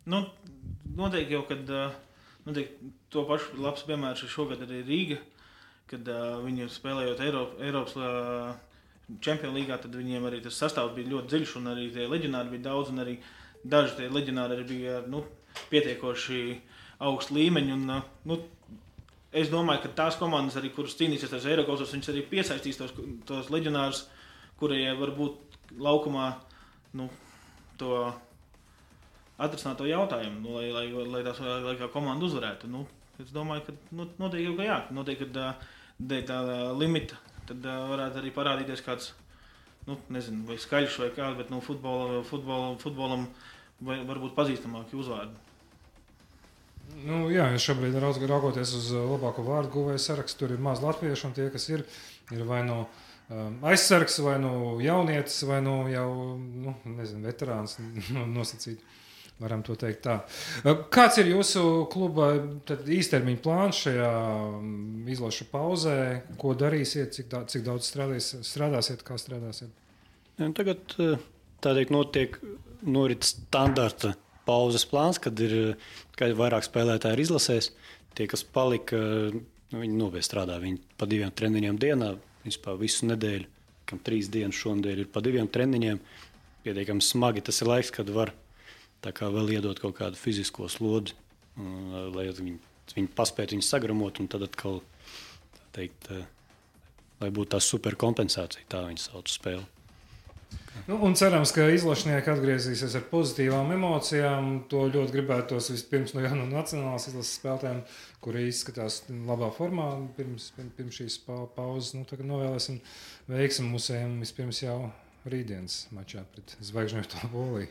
Noteikti jau, kad to pašu labs piemērs ir šogad arī Rīga, kad viņi spēlējot Eiropas Čempionu līgā, tad viņiem arī tas sastāvs bija ļoti dziļš un arī tie leģionāri bija daudz un arī daži tie leģionāri arī bija pietiekoši augstu līmeņu. Un, es domāju, ka tās komandas arī, kuras cīnīsies tās Eirokasos, viņas arī piesaistīs tos leģionārus, kuriem varbūt laukumā to atrisināt to jautājumu, lai kā komanda uzvarētu. Es domāju, ka noteikti jau, ka jā. Noteikti, ka tā limita tad varētu arī parādīties kāds, nezinu, vai skaļš vai kāds, bet futbolam varbūt pazīstamāki uzvārdi. Jā, šobrīd raugoties uz labāko vārdu guvēju sarakstu, tur ir maz latviešu, un tie, kas ir vai no aizsargs, vai no jaunietis, vai no jau, veterāns nosacīt. Varam to teikt tā. Kāds ir jūsu kluba īstermiņa plāns šajā izlašu pauzē? Ko darīsiet, cik daudz strādāsiet, kā strādāsiet? Tagad norit standarta pauzes plāns, kad vairāk spēlētāji ir izlasēs. Tie, kas palika, viņi nopietni strādā. Viņi pa 2 treniņiem dienā, principā visu nedēļu, kam 3 dienas šonadēļ ir pa 2 treniņiem. Pietiekami smagi tas ir laiks, kad var tā kā vēl iedot kaut kādu fizisko slodzi, lai viņi paspētu viņu sagramot, un tad atkal, lai būtu tā superkompensācija, tā viņi sauc spēli. Un cerams, ka izlašnieki atgriezīsies ar pozitīvām emocijām. To ļoti gribētos vispirms no nacionālās izlases spēlētājiem, kuri izskatās labā formā pirms šīs pauzes. Tagad novēlēsim veiksmi musējiem vispirms jau rītdienas mačā pret Zvaigžņoto Poliju.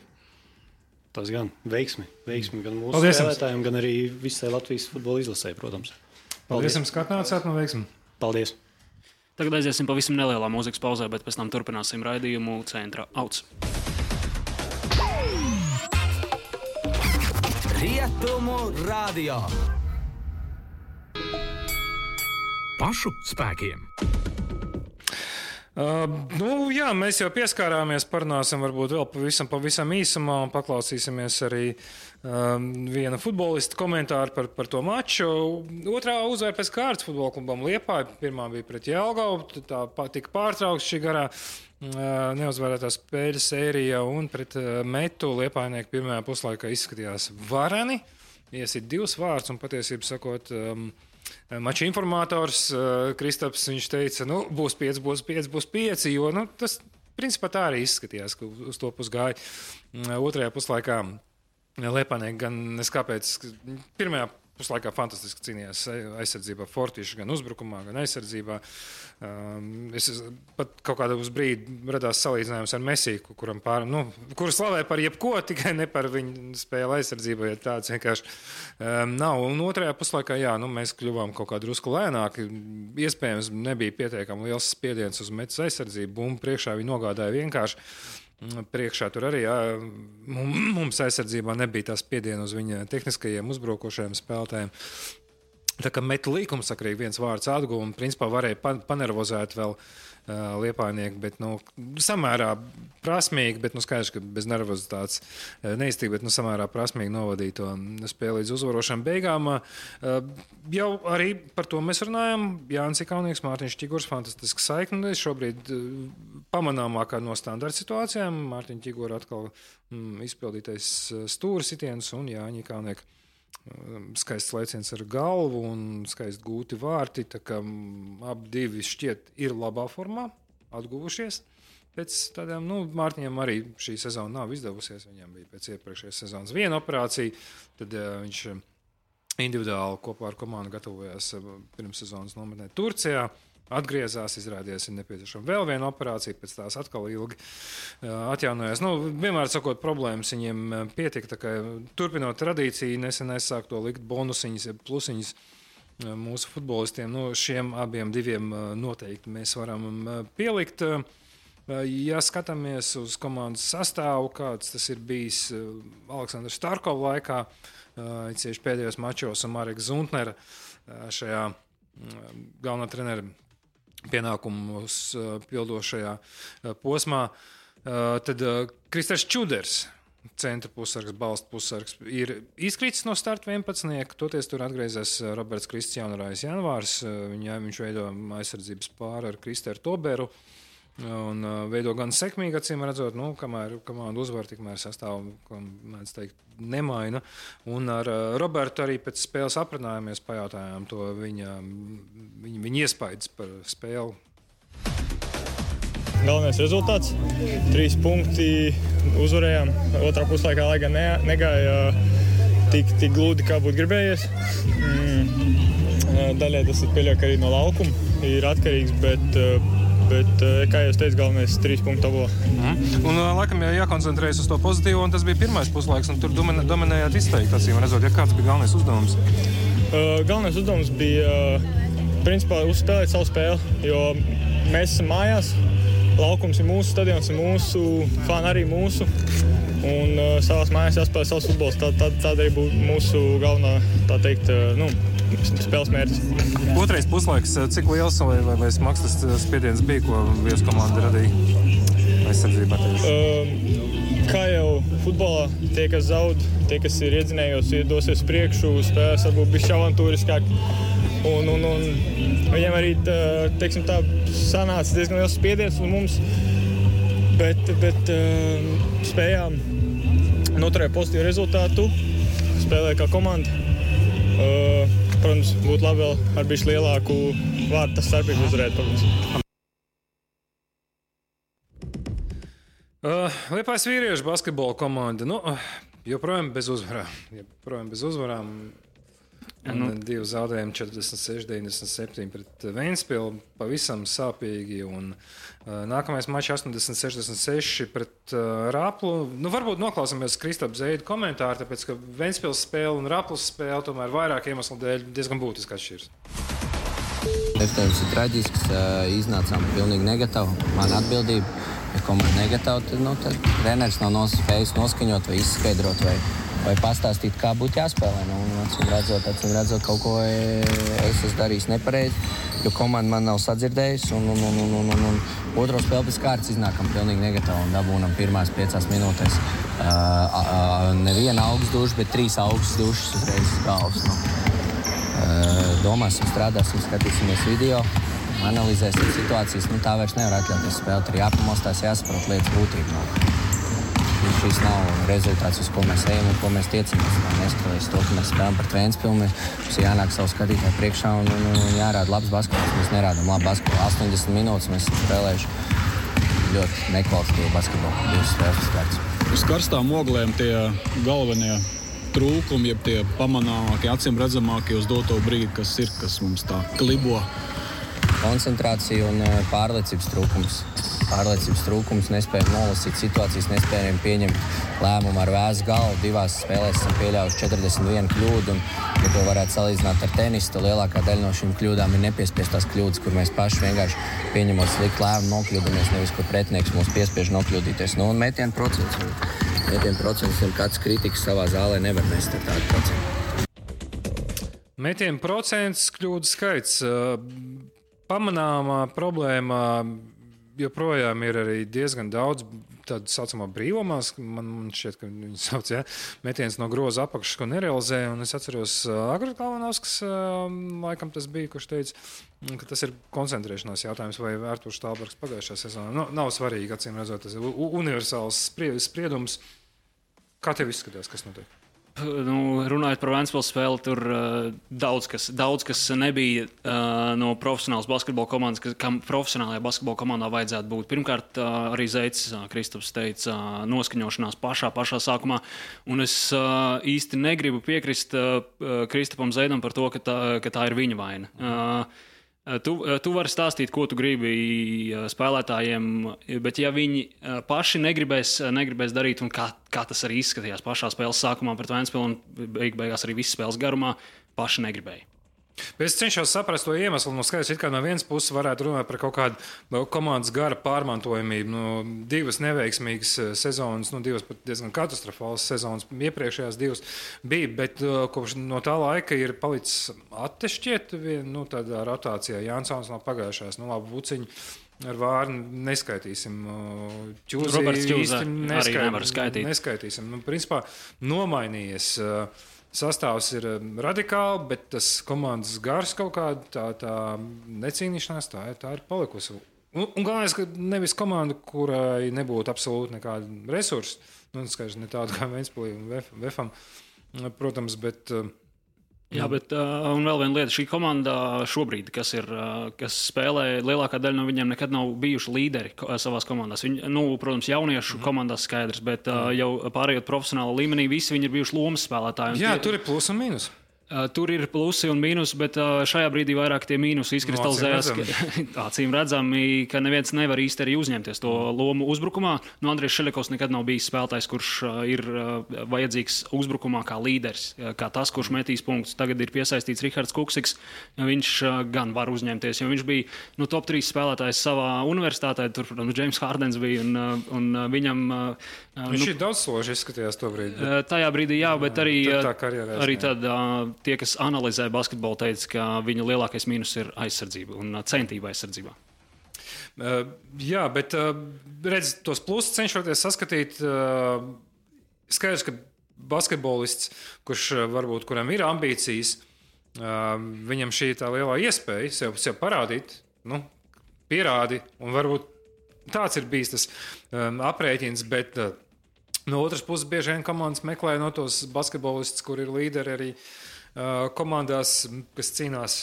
Tas gan veiksmi gan mūsu spēlētājiem, gan arī visai Latvijas futbola izlasē, protams. Paldies jums, ka atnācāt, no veiksmi. Paldies. Tagad aiziesim pavisam nelielā mūzikas pauzē, bet pēc tam turpināsim raidījumu Centra Auts. Rietumu radio. Pašu spēkiem. Mēs jau pieskārāmies, parunāsim varbūt vēl pavisam īsumā un paklausīsimies arī viena futbolista komentāru par to maču. Otrā uzvara pēc kārtas futbola klubam Liepāja. Pirmā bija pret Jelgavu, tā tika pārtraukts šī garā neuzvarētā spēļu sērija, un pret Metu Liepājnieku pirmajā puslaikā izskatījās vareni. Iesit 2 vārdus un patiesību sakot, mača informators Kristaps, viņš teica, būs 5, jo tas principā tā arī izskatījās, ka uz to pus gāja. Otrajā puslaikā Liepājnieki gan neskāpēc, pirmajā puslaikā fantastiski cīnījās aizsardzībā, fortīši gan uzbrukumā, gan aizsardzībā. Es pat kaut kādā uz brīdi radās salīdzinājums ar Messi, kuru slavē par jebko, tikai ne par viņu spēli aizsardzībā, ja tāds vienkārši nav. Un otrajā puslaikā, mēs kļuvām kaut kā drusku lēnāki. Iespējams, nebija pietiekami liels spiediens uz Metas aizsardzību. Bumbu priekšā viņi nogādāja vienkārši. Priekšā tur arī mums aizsardzībā nebija tā spiediena uz viņa tehniskajiem uzbrukošajiem spēlētājiem. Tā kā Meta līkumsakrīgi viens vārds atguva un principā varēja panervozēt vēl liepājnieki, bet samērā prasmīgi, bet skaidrs, ka bez nervozitātes neiztika, bet samērā prasmīgi novadīja to spēli līdz uzvarošām beigām. Jau arī par to mēs runājam. Jānis Ikaunieks, Mārtiņš Ķigurs, fantastiska saikne. Šobrīd pamanāmākā no standarta situācijām. Mārtiņa Ķigura atkal izpildītais stūra sitiens un Jāņa Ikaunieka skaists lēciens ar galvu un skaisti gūti vārti. Tā kā abi divi šķiet ir labā formā, atguvušies. Pēc tādām, Mārtiņam arī šī sezona nav izdevusies. Viņam bija pēc iepriekšējās sezonas viena operācija, tad viņš individuāli kopā ar komandu gatavojās pirms sezonas nometnē Turcijā. Atgriezās, izrādījās, ir nepieciešama vēl viena operācija, pēc tās atkal ilgi atjaunojās. Vienmēr sakot, problēmas viņiem pietika, tā kā turpinot tradīciju, nesen aizsāk to likt bonusiņas, plusiņas mūsu futbolistiem. Šiem abiem diviem noteikti mēs varam pielikt. Ja skatāmies uz komandas sastāvu, kāds tas ir bijis Aleksandra Starkova laikā, cieši pēdējos mačos un Mareka Zuntnera šajā galvenā trenera pienākumus pildošajā posmā, tad Kristers Čuders, centra pussargs, balsta pussargs, ir izkritis no starta 11. Toties tur atgriezās Roberts Kristiānrājs Janvārs. Viņš veido aizsardzības pāri ar Kristeru Toberu un veido gan sekmīgi, acīm redzot, kamēr komanda uzvar, tikmēr sastāvu, ko mēdz teikt, nemaina. Un ar Robertu arī pēc spēles aprunājāmies, pajautājām to viņa iespaidas par spēli. Galvenais rezultāts - 3 punkti, uzvarējām. Otrā puslaikā, lai gan negāja tik gludi, kā būtu gribējies. Daļai tas ir pieļauj, ka arī no laukuma ir atkarīgs, bet, kā jau teicu, galvenais 3 punktu tabulā. Un laikam jākoncentrējas uz to pozitīvo, un tas bija pirmais puslaiks, un tur dominējāt izteikti, acīm redzot. Kāds bija galvenais uzdevums? Galvenais uzdevums bija, principā, uzspēlēt savu spēli, jo mēs esam mājās, laukums ir mūsu stadions, ir mūsu, fani arī mūsu, un savās mājās jāspēlē savs futbols. Tāda arī būtu mūsu galvenā, tā teikt, spēles mērķis. Otrais puslaiks, cik liels vai smags tas spiediens bija, ko viesu komanda radīja aizsardzībā? Kā jau futbolā, tie, kas zaud, tie, kas ir iedzinējos, dosies priekšu, spēlēs varbūt bišķi avantūriskāk. Un viņiem arī, teiksim tā, sanāca diezgan liels spiediens uz mums, bet spējām noturēt pozitīvu rezultātu, spēlēt kā komanda. Protams, būtu labi vēl ar bišķi lielāku vārtu starpību uzvarēt, protams. Liepājas vīriešu basketbola komanda, joprojām bez uzvarām. Un 2 zaudējumi 46-97 pret Ventspili, pavisam sāpīgi. Un nākamais mačs 80-66 pret Raplu. Varbūt noklausāmies Kristapa Zeidu komentāru, tāpēc, ka Ventspils spēle un Raplas spēle tomēr vairāk iemeslu dēļ diezgan būtiski atšķiras. Efteņums ir traģisks, iznācām pilnīgi negatīvi. Man atbildība, ja komanda negatīva, tad treneris nav spējis noskaņot vai izskaidrot vai pastāstīt, kā būtu jāspēlē. Acīm redzot, kaut ko es esmu darījis nepareizi, jo komanda man nav sadzirdējusi. Un otro spēli pēc kārtas iznākam pilnīgi negatīvi un dabūnam pirmās 5 minūtēs. Neviena augsts duša, bet 3 augstas dušas uzreiz uz galvas. Domāsim, strādāsim, skatīsimies video, analizēsim situācijas. Tā vairs nevar atļauties spēlēt. Ir jāpamostās, jāsaprot lietas būtību. Šis nav rezultāts, uz ko mēs ejam un ko mēs tiecamies. Neskatoties to, ka mēs spēlējam par Ventspili, mums jānāk savu skatītāju priekšā un jārāda labs basketbols. Mēs nerādām labu basketbolu. 80 minūtes mēs esam spēlējuši ļoti nekvalitatīvu basketbolu. 2 spēles pēc kārtas. Uz karstām oglēm tie galvenie trūkumi, jeb tie pamanāmākie, acīm redzamākie uz doto brīdi, kas mums tā klibo. Koncentrācija un pārliecības trūkums, nespējam nolasīt situācijas, nespējam pieņemt lēmumu ar vēsu galvu. 2 spēlēs esam pieļāvuši 41 kļūdu, un, ja to varētu salīdzināt ar tenisu, tad lielākā daļa no šīm kļūdām ir nepiespiestās kļūdas, kur mēs paši vienkārši pieņemot sliktu lēmumu nokļūdamies, nevis, kur pretinieks mūs piespiež nokļūdīties. Un metienu procents, kāds kritikas savā zālē nevar mest ar tādu procentu. Metienu procents, kļūdu skaits. Pamanāmā problēma joprojām ir arī diezgan daudz tādu saucamā brīvomās, man šķiet, ka viņi sauc, metiens no groza apakšas, ko nerealizē, un es atceros Agris Kalvanovskis, laikam tas bija, kurš teica, ka tas ir koncentrēšanās jautājums, vai Artūrs Štālbergs pagājušā sezonā. Nav svarīgi, acīm redzot, tas ir universāls spriedums. Kā tev izskatās, kas notiek? Runājot par Ventspils spēli, tur daudz kas nebija no profesionālas basketbola komandas, kam profesionālajā basketbola komandā vajadzētu būt. Pirmkārt, arī Zeids Kristaps teica noskaņošanās pašā sākumā, un es īsti negribu piekrist Kristapam Zeidam par to, ka tā ir viņa vaina. Tu vari stāstīt, ko tu gribi spēlētājiem, bet ja viņi paši negribēs darīt, un kā tas arī izskatījās pašā spēles sākumā pret Ventspilu un beigās arī visas spēles garumā, paši negribēja. Es cenšos saprast to iemeslu. Skaidrs, it kā no vienas puses varētu runāt par kaut kādu komandas gara pārmantojamību. Divas neveiksmīgas sezonas, divas pat diezgan katastrofālas sezonas. Iepriekšējās divas bija, bet kopš no tā laika ir palicis attešķiet tādā rotācijā. Jansons no pagājušās, labi, Vuciņi ar Vārnu neskaitīsim. Roberts Ķūza arī nevar skaitīt. Neskaitīsim. Principā nomainījies. Sastāvs ir radikāli, bet tas komandas gars kaut kāda tā necīnīšanās, tā ir palikusi. Un galvenais, ka nevis komanda, kurai nebūtu absolūti nekāda resursa, skaidrs, ne tāda kā Ventspilī un Vefam, protams, bet... Jā, bet un vēl viena lieta, šī komanda šobrīd, kas spēlē, lielākā daļa no viņiem nekad nav bijuši līderi savās komandās. Viņi, protams, jauniešu komandās skaidrs, bet jau pārējot profesionāla līmenī, visi viņi ir bijuši lomas spēlētāji. Jā, tur ir plus un mīnus. Tur ir plusi un mīnusi, bet šajā brīdī vairāk tie mīnusi izkristalizējās. Acīm redzami, ka neviens nevar īsti arī uzņemties to lomu uzbrukumā. Andrijs Šelekovs nekad nav bijis spēlētājs, kurš ir vajadzīgs uzbrukumā kā līderis, kā tas, kurš metīs punktus. Tagad ir piesaistīts Rihards Kuksiks. Viņš gan var uzņemties, jo viņš bija top 3 spēlētājs savā universitātē. Tur, James Hardens bija un viņam... Viņš ir daudzsloži izskatījās to brīdi. Tajā brīdī, jā, bet arī tad... Tie, kas analizē basketbolu, teica, ka viņa lielākais mīnus ir aizsardzība un centība aizsardzībā. Jā, bet redz, tos plusus cenšoties saskatīt. Skaidrs, ka basketbolists, kuram ir ambīcijas, viņam šī tā lielā iespēja sev parādīt, pierādi, un varbūt tāds ir bijis tas aprēķins, bet no otras puses bieži vien komandas meklē no tos basketbolistus, kur ir līderi arī komandās, kas cīnās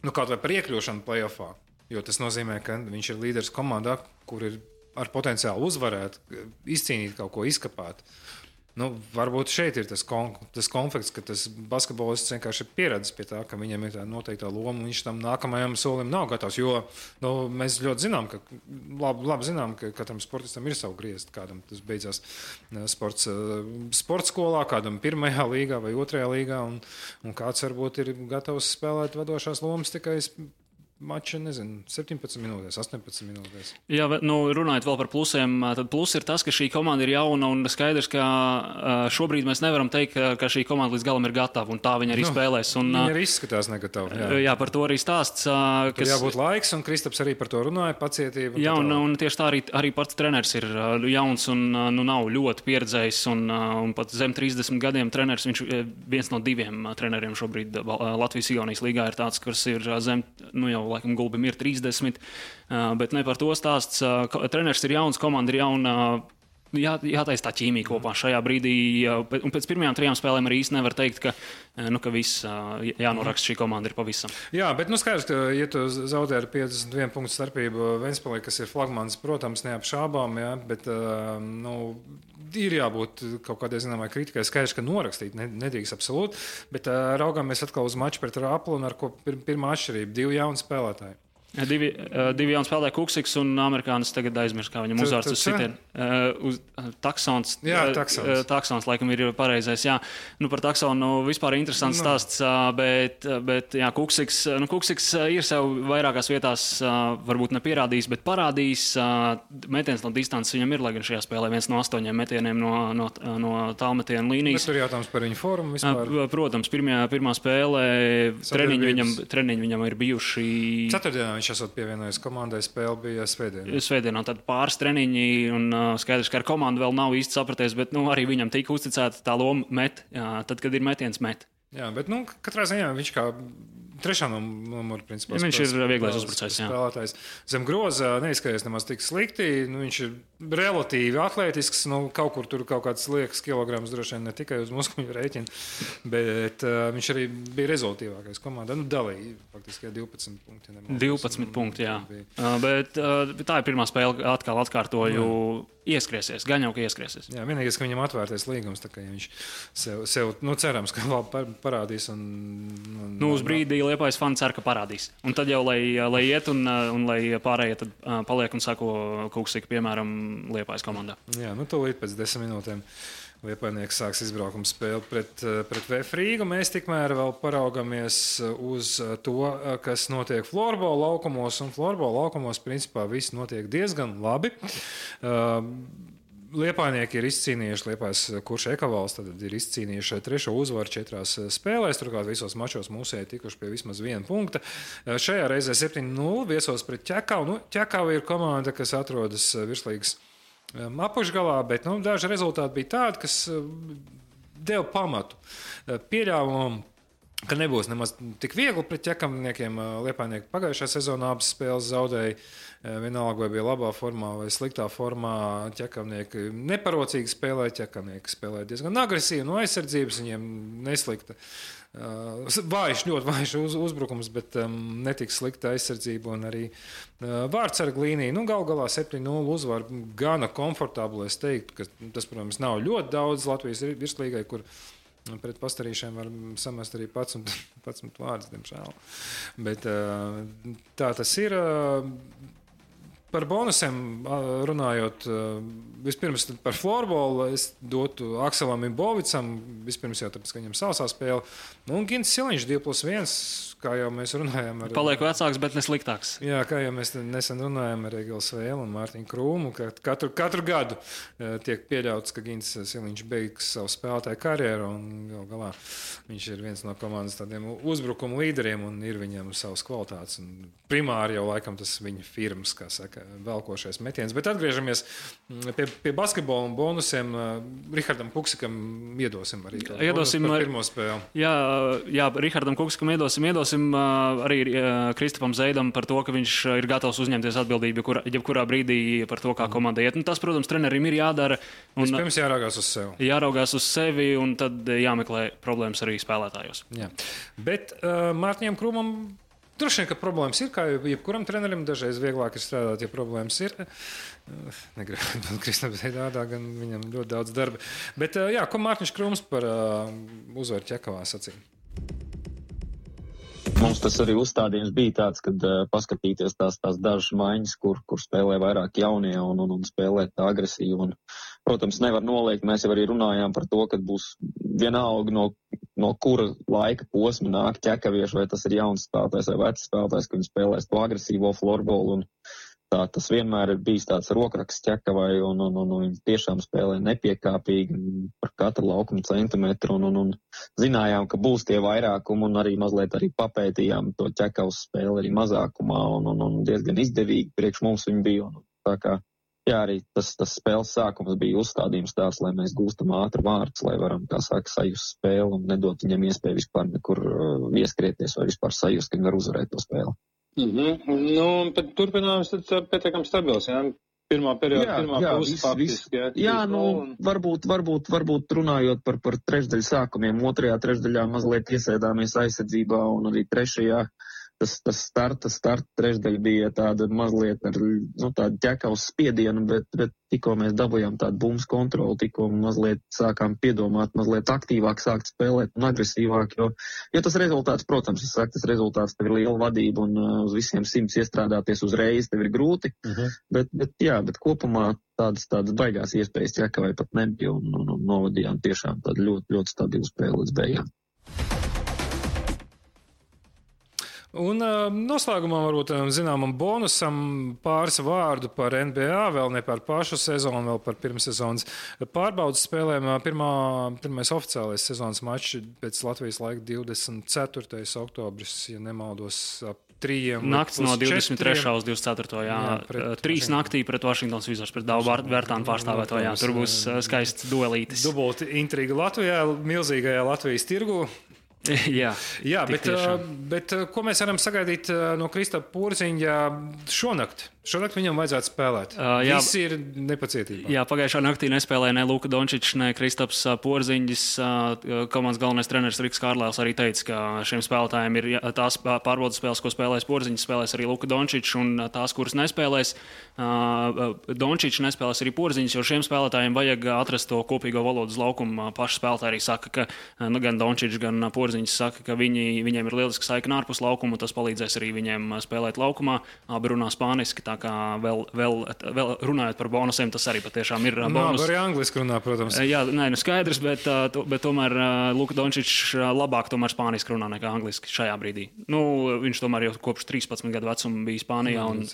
kaut vai par iekļūšanu play-offā, jo tas nozīmē, ka viņš ir līderis komandā, kur ir ar potenciālu uzvarēt, izcīnīt kaut ko, izkapāt. Varbūt šeit ir tas konflikts, ka tas basketbolists vienkārši ir pieredzis pie tā, ka viņam ir tā noteiktā loma, un viņš tam nākamajam solim nav gatavs, jo mēs ļoti zinām, labi zinām, ka katram sportistam ir savu griezt, kādam tas beidzās sporta skolā, kādam 1. līgā vai 2. līgā, un kāds varbūt ir gatavs spēlēt vadošās lomas tikai mača, 17 minūtēs, 18 minūtēs. Jā, runājot vēl par plusiem, tad plus ir tas, ka šī komanda ir jauna un skaidrs, ka šobrīd mēs nevaram teikt, ka šī komanda līdz galam ir gatava un tā viņa arī spēlēs. Viņa arī izskatās negatava. Jā, par to arī stāsts. Tur jābūt laiks, un Kristaps arī par to runāja, pacietība. Jā, un tieši tā arī pats treneris ir jauns un nav ļoti pieredzējis un pat zem 30 gadiem treneris, viņš viens no 2 treneriem šobrīd Latvijas-Igaunijas līgā ir tāds, kurš ir zem, jau laikam Gulbim ir 30, bet ne par to stāsts. Treneris ir jauns, komanda ir jauna. Jātaisa tā ķīmija kopā šajā brīdī. Un pēc pirmajām 3 spēlēm arī īsti nevar teikt, ka viss jānoraksta šī komanda ir pavisam. Jā, bet skaidrs, ka, ja tu zaudē ar 51 punktu starpību Ventspilī, kas ir flagmans, protams, neapšābām, bet ir jābūt kaut kādai zināmai kritikai. Skaidrs, ka norakstīt nedrīkst absolūti, bet raugāmies atkal uz maču pret Raplu, un ar ko pirmā atšķirība 2 jauni spēlētāji. Divi jauni spēlētāji, Kuksiks un amerikānis tagad aizmirst, kā viņam uzvārds uz sitienu. Taksons. Jā, Taksons, laikam, ir pareizais. Jā. Par Taksonu vispār interesants stāsts, bet jā, Kuksiks ir sev vairākās vietās varbūt nepierādījis, bet parādījis. Metiens no distances viņam ir, lai gan šajā spēlē 1 no 8 metieniem no tālmetiena līnijas. Bet tur jautājums par viņu formu vispār. Protams, pirmā spēlē treniņi viņam ir bijuši. Ceturtdienā viņš esot pievienojies komandai, spēle bija Svētdienā tad pāris treniņi un skaidrs, ka ar komandu vēl nav īsti sapraties, bet arī viņam tika uzticēta tā loma met, tad, kad ir metiens met. Jā, bet katrā ziņā viņš kā trešā numura principā. Ja viņš ir vieglais uzbrucējs, jā. Spēlētājs. Zem groza neizskatās nemaz tik slikti, viņš ir relatīvi atletisks, kaut kur tur kaut kāds liekas kilograms droši vien ne tikai uz muskuļu rēķina, bet viņš arī bija rezultīvākais komandā. Dalīja faktiski 12 punkti. 12 punkti, jā. Bet tā ir pirmā spēle, atkal atkārtoju, ieskriesies, gan jau, ka ieskriesies. Jā, vienīgais, ka viņam atvērtais līgums, tā kā ja viņš sev cerams, ka labi parādīs. Uz brīdī Liepājas fani cer, ka parādīs. Un tad jau, lai iet un lai pārējie tad paliek un sako Kuksika, piemēram, Liepājas komandā. Jā, tūlīt pēc 10 minūtēm Liepājnieks sāks izbraukuma spēli pret VF Rīgu. Mēs tikmēr vēl paraugamies uz to, kas notiek florbola laukumos, un florbola laukumos principā viss notiek diezgan labi. Liepājnieki ir izcīnījuši, Liepājas Kurš Ekavals tad ir izcīnījuši 3. uzvaru 4 spēlēs, turklāt visos mačos mūsēji tikuši pie vismaz 1 punkta. Šajā reizē 7-0 viesos pret Ķekavu. Ķekava ir komanda, kas atrodas virslīgas apakšgalā, bet daži rezultāti bija tādi, kas deva pamatu pieļāvumu, ka nebūs nemaz tik viegli pret ķekavniekiem. Liepājnieki pagājušā sezonā abas spēles zaudēja. Vienalga, vai bija labā formā vai sliktā formā, ķekavnieki neparocīgi spēlēja, ķekavnieki spēlēja diezgan agresīvi no aizsardzības, viņiem neslikta. Ļoti vājš uzbrukums, bet netik slikta aizsardzība un arī vārdsarga līnija. Galu galā 7-0 uzvar gana komfortabli. Es teiktu, ka tas, protams, nav ļoti daudz Latvijas virslīgai, kur pret pastarīšiem var samest arī 11 vārdus, diemžēl. Bet tā tas ir. Par bonusiem runājot, vispirms par florbolu es dotu Akselam Imbovicam, vispirms jau tāpēc, ka viņam sausā spēle. Un Gins Siliņš 2+1, kā jau mēs runājām. Paliek vecāks, bet ne sliktāks. Jā, kā jau mēs nesen runājām ar Egilu Svēlu un Mārtiņu Krūmu, ka katru gadu tiek pieļauts, ka Gins Siliņš beigs savu spēlētāju karjeru un galā viņš ir viens no komandas tādiem uzbrukuma līderiem un ir viņam savas kvalitātes. Un primāri jau laikam tas viņa firmas, kā saka, velkošais metiens. Bet atgriežamies pie basketbola un bonusiem. Rihardam Kuksikam iedosim arī par pirmo spēli. Jā, Rihardam Kuksikam iedosim arī Kristapam Zeidam par to, ka viņš ir gatavs uzņemties atbildību jebkurā brīdī par to, kā komanda iet. Tas, protams, trenerim ir jādara. Vispirms jāraugās uz sevi. Jāraugās uz sevi un tad jāmeklē problēmas arī spēlētājos. Jā. Bet Mārtiņam Krūmam droši vien, ka problēmas ir, kā jebkuram trenerim, dažreiz vieglāk ir strādāt, ja problēmas ir. Negribu būt Kristapam Zeidādā, gan viņam ļoti daudz darba. Bet jā, ko Mārtiņš Krūms par uzvaru Ķekavā sacīja? Mums tas arī uzstādījums bija tāds, kad paskatīties tās dažas maiņas, kur spēlē vairāk jaunie un spēlē tā agresīvi. Un, protams, nevar noliegt, mēs jau arī runājām par to, ka būs vienalga no kura laika posma nāk ķekavieši, vai tas ir jauns spēlētājs vai vecs spēlētājs, ka viņi spēlēs to agresīvo florbolu. Un tā tas vienmēr ir bijis tāds rokraksts ķekavai un viņi tiešām spēlē nepiekāpīgi par katru laukuma centimetru un zinājām, ka būs tie vairākumi un arī mazliet arī papētījām to ķekavas spēli arī mazākumā un diezgan izdevīgi priekš mums viņi bija. Tā kā, jā, arī tas spēles sākums bija uzstādījums tāds, lai mēs gūstam ātri vārdus, lai varam, kā saka, sajust spēli un nedot viņam iespēju vispār nekur ieskrieties vai vispār sajust, ka viņi var uzvarēt to spēli. Bet turpinājums tad pietiekami stabils, jā? Pirmā perioda, pirmā puse faktiski, jā? Jā, varbūt runājot par trešdaļu sākumiem, otrajā trešdaļā mazliet iesēdāmies aizsardzībā un arī trešajā tas starta trešdaļa bija tāda mazliet ar tādu ķekavas spiedienu, bet tikko mēs dabujām tādu bumbu kontroli, tikko mazliet sākām piedomāt, mazliet aktīvāk sākt spēlēt un agresīvāk, jo tas rezultāts, protams, tas rezultāts tev ir liela vadība un uz visiem 100 iestrādāties uzreiz tev ir grūti, bet kopumā tādas baigās iespējas ķekavai pat nebija un novadījām tiešām tādu ļoti, ļoti stabilu spēli līdz beigām. Un noslēgumā varbūt zināmam bonusam pāris vārdu par NBA, vēl ne par pašu sezonu, vēl par pirmssezonas pārbaudas spēlēm. Pirmais oficiālais sezonas mačs pēc Latvijas laika 24. oktobris, ja nemaldos, ap 3. Nakts no 23. uz 24. Jā, 3 naktī pret Washingtons Wizards, pret Davu Vērtānu pārstāvēto, jā. Tur būs skaists duelītis. Dubulti intriga Latvijā, milzīgajā Latvijas tirgu. Jā, bet ko mēs varam sagaidīt no Kristapa Porziņa šonakt? Šonakt viņam vajadzētu spēlēt. Visi ir nepacietībā. Jā, pagājušā naktī nespēlēja ne Luka Dončičs, ne Kristaps Porziņģis. Komandas galvenais treneris Riks Kārlēls arī teica, ka šiem spēlētājiem ir tās pārbaudas spēles, ko spēlēs Porziņģis, spēlēs arī Luka Dončičs, un tās, kuras nespēlēs Dončičs, nespēlēs arī Porziņģis, jo šiem spēlētājiem vajag atrast to kopīgo valodu uz laukumu. Paši spēlētāji arī saka, ka gan Dončičs, gan Porziņģis saka, ka viņiem ir lieliski saikne ārpus laukuma, un tas palīdzēs arī viņiem spēlēt laukumā. Abi runā spāniski, tā kā vēl runājot par bonusiem, tas arī patiešām ir bonus. Arī angliski runā, protams. Jā, skaidrs, bet tomēr Luka Dončičs labāk tomēr spāniski runā nekā angliski šajā brīdī. Viņš tomēr jau kopš 13 gadu vecuma bija Spānijā un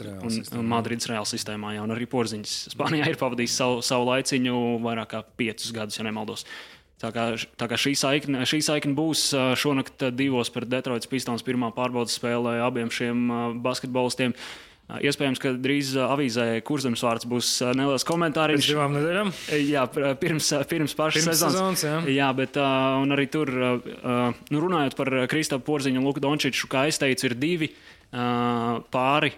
Madrides Reāla sistēmā, jā, un arī Porziņģis Spānijā ir pavadījis savu laiciņu vairāk kā 5 gadus, ja nemaldos. Tā kā šī saikne būs šonakt 2 pret Detroitas Pistons pirmā pārbaudas spēlē abiem šiem basketbolistiem. Iespējams, ka drīz avīzē Kurzemes vārds būs neliels komentāriņš. Pēc 2 nedēļām? Jā, pirms pašas sezonas. Jā, bet un arī tur, runājot par Kristapu Porziņu un Luku Dončiču, kā es teicu, ir 2 pāri,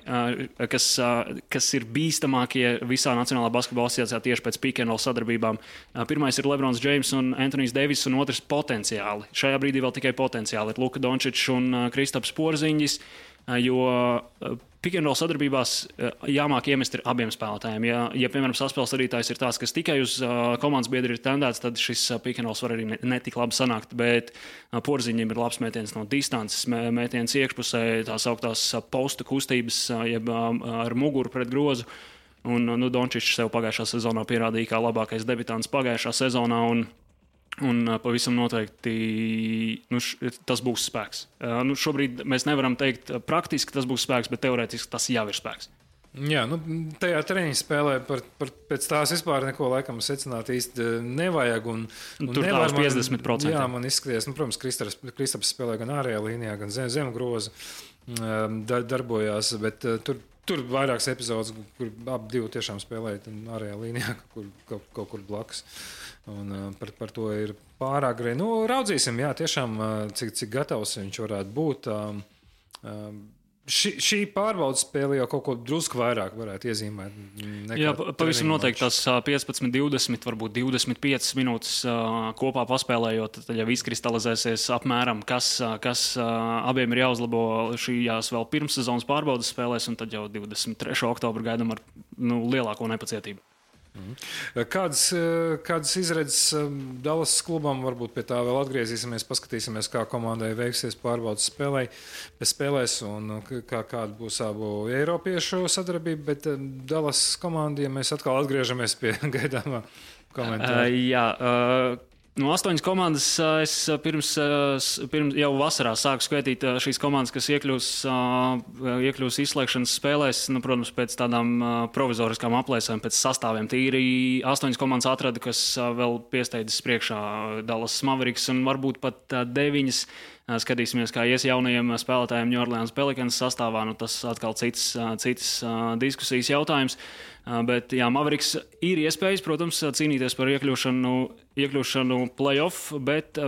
kas ir bīstamākie visā Nacionālā basketbola asociācijā tieši pēc pick and roll sadarbībām. Pirmais ir Lebrons James un Anthonijs Devis, un otrs potenciāli. Šajā brīdī vēl tikai potenciāli ir Luka Dončičs un Kristaps Porziņģis, jo pick and roll sadarbībās jāmāk iemest ir abiem spēlētājiem. Ja piemēram, saspēles vadītājs ir tāds, kas tikai uz komandas biedri ir tendēts, tad šis pick and rolls var arī netik labi sanākt, bet Porziņam ir labs mētiens no distances, mētiens iekšpusē, tās augtās postu kustības, jeb ar muguru pret grozu. Un Dončičs sev pagājušā sezonā pierādīja kā labākais debitants pagājušā sezonā, un pavisam noteikti tas būs spēks. Šobrīd mēs nevaram teikt praktiski tas būs spēks, bet teorētiski tas jau ir spēks. Jā, tajā treniņa spēlē pēc tās vispār neko laikam secināt īsti nevajag. Un tur tās 50%. Jā, man izskaties, protams, Kristaps spēlē gan ārējā līnijā, gan zem groza darbojās, bet tur vairākas epizodes, kur abi divi tiešām spēlēja ārējā līnijā, kaut kur blakus. Un par to ir pārāk grei. Raudzīsim, jā, tiešām, cik gatavs viņš varētu būt. Šī pārbaudas spēle jau kaut ko drusku vairāk varētu iezīmēt. Jā, pavisam noteikti tās 15, 20, varbūt 25 minūtes kopā paspēlējot, tad jau izkristalizēsies apmēram, kas abiem ir jāuzlabo šījās vēl pirmssezonas pārbaudas spēlēs, un tad jau 23. oktobru gaidām ar lielāko nepacietību. Kādas izredzes Dallas klubam, varbūt pie tā vēl atgriezīsimies, paskatīsimies, kā komandai veiksies pārbaudas spēlēs un kāda būs abu eiropiešu sadarbība, bet Dallas komandai mēs atkal atgriežamies pie gaidāmā komentāra. Jā, 8 komandas es pirms jau vasarā sāku skaitīt šīs komandas, kas iekļūs izslēgšanas spēlēs, protams, pēc tādām provizoriskām aplēsēm, pēc sastāviem. Tīri 8 komandas atrada, kas vēl piesteidzas priekšā Dallas Mavericks un varbūt pat 9. Skatīsimies, kā ies jaunajiem spēlētājiem New Orleans Pelicans sastāvā. Tas atkal cits diskusijas jautājums. Bet jā, Mavericks ir iespējas, protams, cīnīties par iekļūšanu play-off, bet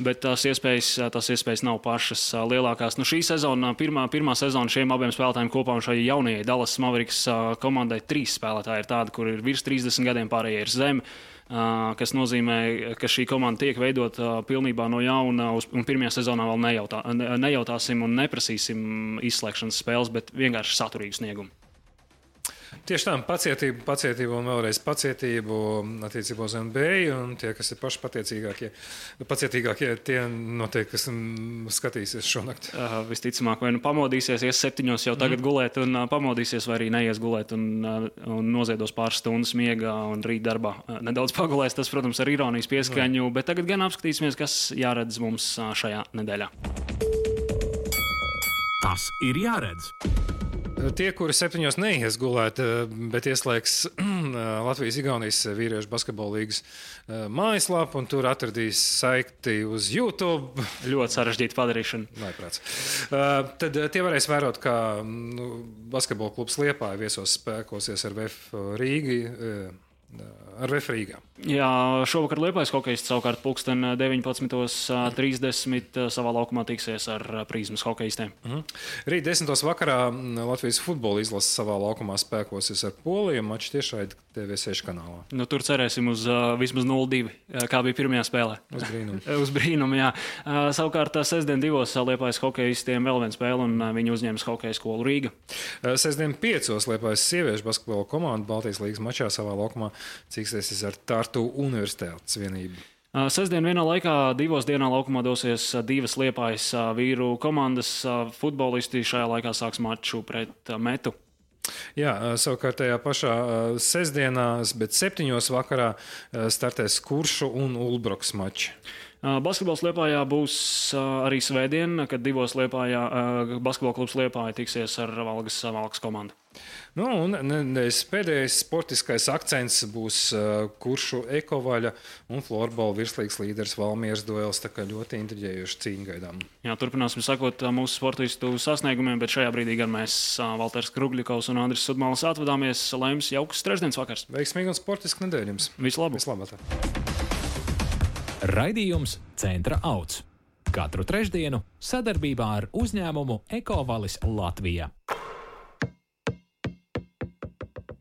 Bet tās iespējas nav pašas lielākās. Nu, šī sezona, pirmā sezona šiem abiem spēlētājiem kopā un šai jaunajai Dallas Mavericks komandai 3 spēlētāji ir tādi, kur ir virs 30 gadiem, pārējie ir zem, kas nozīmē, ka šī komanda tiek veidota pilnībā no jauna, un pirmajā sezonā vēl nejautāsim un neprasīsim izslēgšanas spēles, bet vienkārši saturīgu sniegumu. Tieši tā, pacietību un vēlreiz pacietību attiecībā uz NBA, un tie, kas ir paši pacietīgākie, tie noteikti, kas skatīsies šonakt. Visticamāk, vai nu pamodīsies, ies 7 jau tagad gulēt un pamodīsies, vai arī neies gulēt un noziedos pāris stundas miegā un rīt darbā nedaudz pagulēs. Tas, protams, ar ironijas pieskaņu, bet tagad gan apskatīsimies, kas jāredz mums šajā nedēļā. Tas ir jāredz. Tie, kuri 7 neies gulēt, bet ieslēgs Latvijas-Igaunijas vīriešu basketbola līgas mājaslapu un tur atradīs saikti uz YouTube. Ļoti sarežģīta padarīšana. Vajprāts. Tad tie varēs vērot, kā basketbola klubs Liepāja viesos spēkosies ar VF Rīgā. Jā, šovakar Liepājas hokejists savukārt pulksten 19:30 savā laukumā tiksies ar Prizmas hokejistiem. Rīt 10. vakarā Latvijas futbola izlase savā laukumā spēkosies ar Poliju, mačs tiešraidi TV6 kanālā. Nu, tur cerēsim uz vismaz 0-2, kā bija pirmajā spēlē. Uz brīnumu, jā. Savukārt sestdien 2 Liepājas hokejistiem vēl viena spēle, un viņi uzņems hokeja skolu Rīga. Sestdien 5 Liepājas sieviešu basketbola komanda Baltijas līgas mačā savā laukumā cīksies ar Tartu Universitātes vienību. Sestdien vienā laikā 2 dienā laukumā dosies 2 Liepājas vīru komandas futbolisti. Šajā laikā sāks maču pret Metu. Jā, savukārt tajā pašā sestdienā, bet 7 vakarā startēs Kuršu un Ulbrokas mači. Basketbols Liepājā būs arī svētdien, kad 2 Liepājā basketbola klubs Liepāja tiksies ar Valgas komandu. Nu, un pēdējais sportiskais akcents būs Kuršu ekovaļa un florbola virslīgas līderis Valmieras duels, tā kā ļoti intriģējuši cīņu gaidām. Jā, turpināsim sakot mūsu sportistu sasniegumiem, bet šajā brīdī gan mēs, Valters Krugļikovs un Andris Sudmalis, atvadāmies. Lai jums jauks trešdienas vakars. Veiksmīgi un sportiski nedēļ jums. Vislabāk. Raidījums Centra Auts. Katru trešdienu sadarbībā ar uzņēmumu Ekovalis Latvija.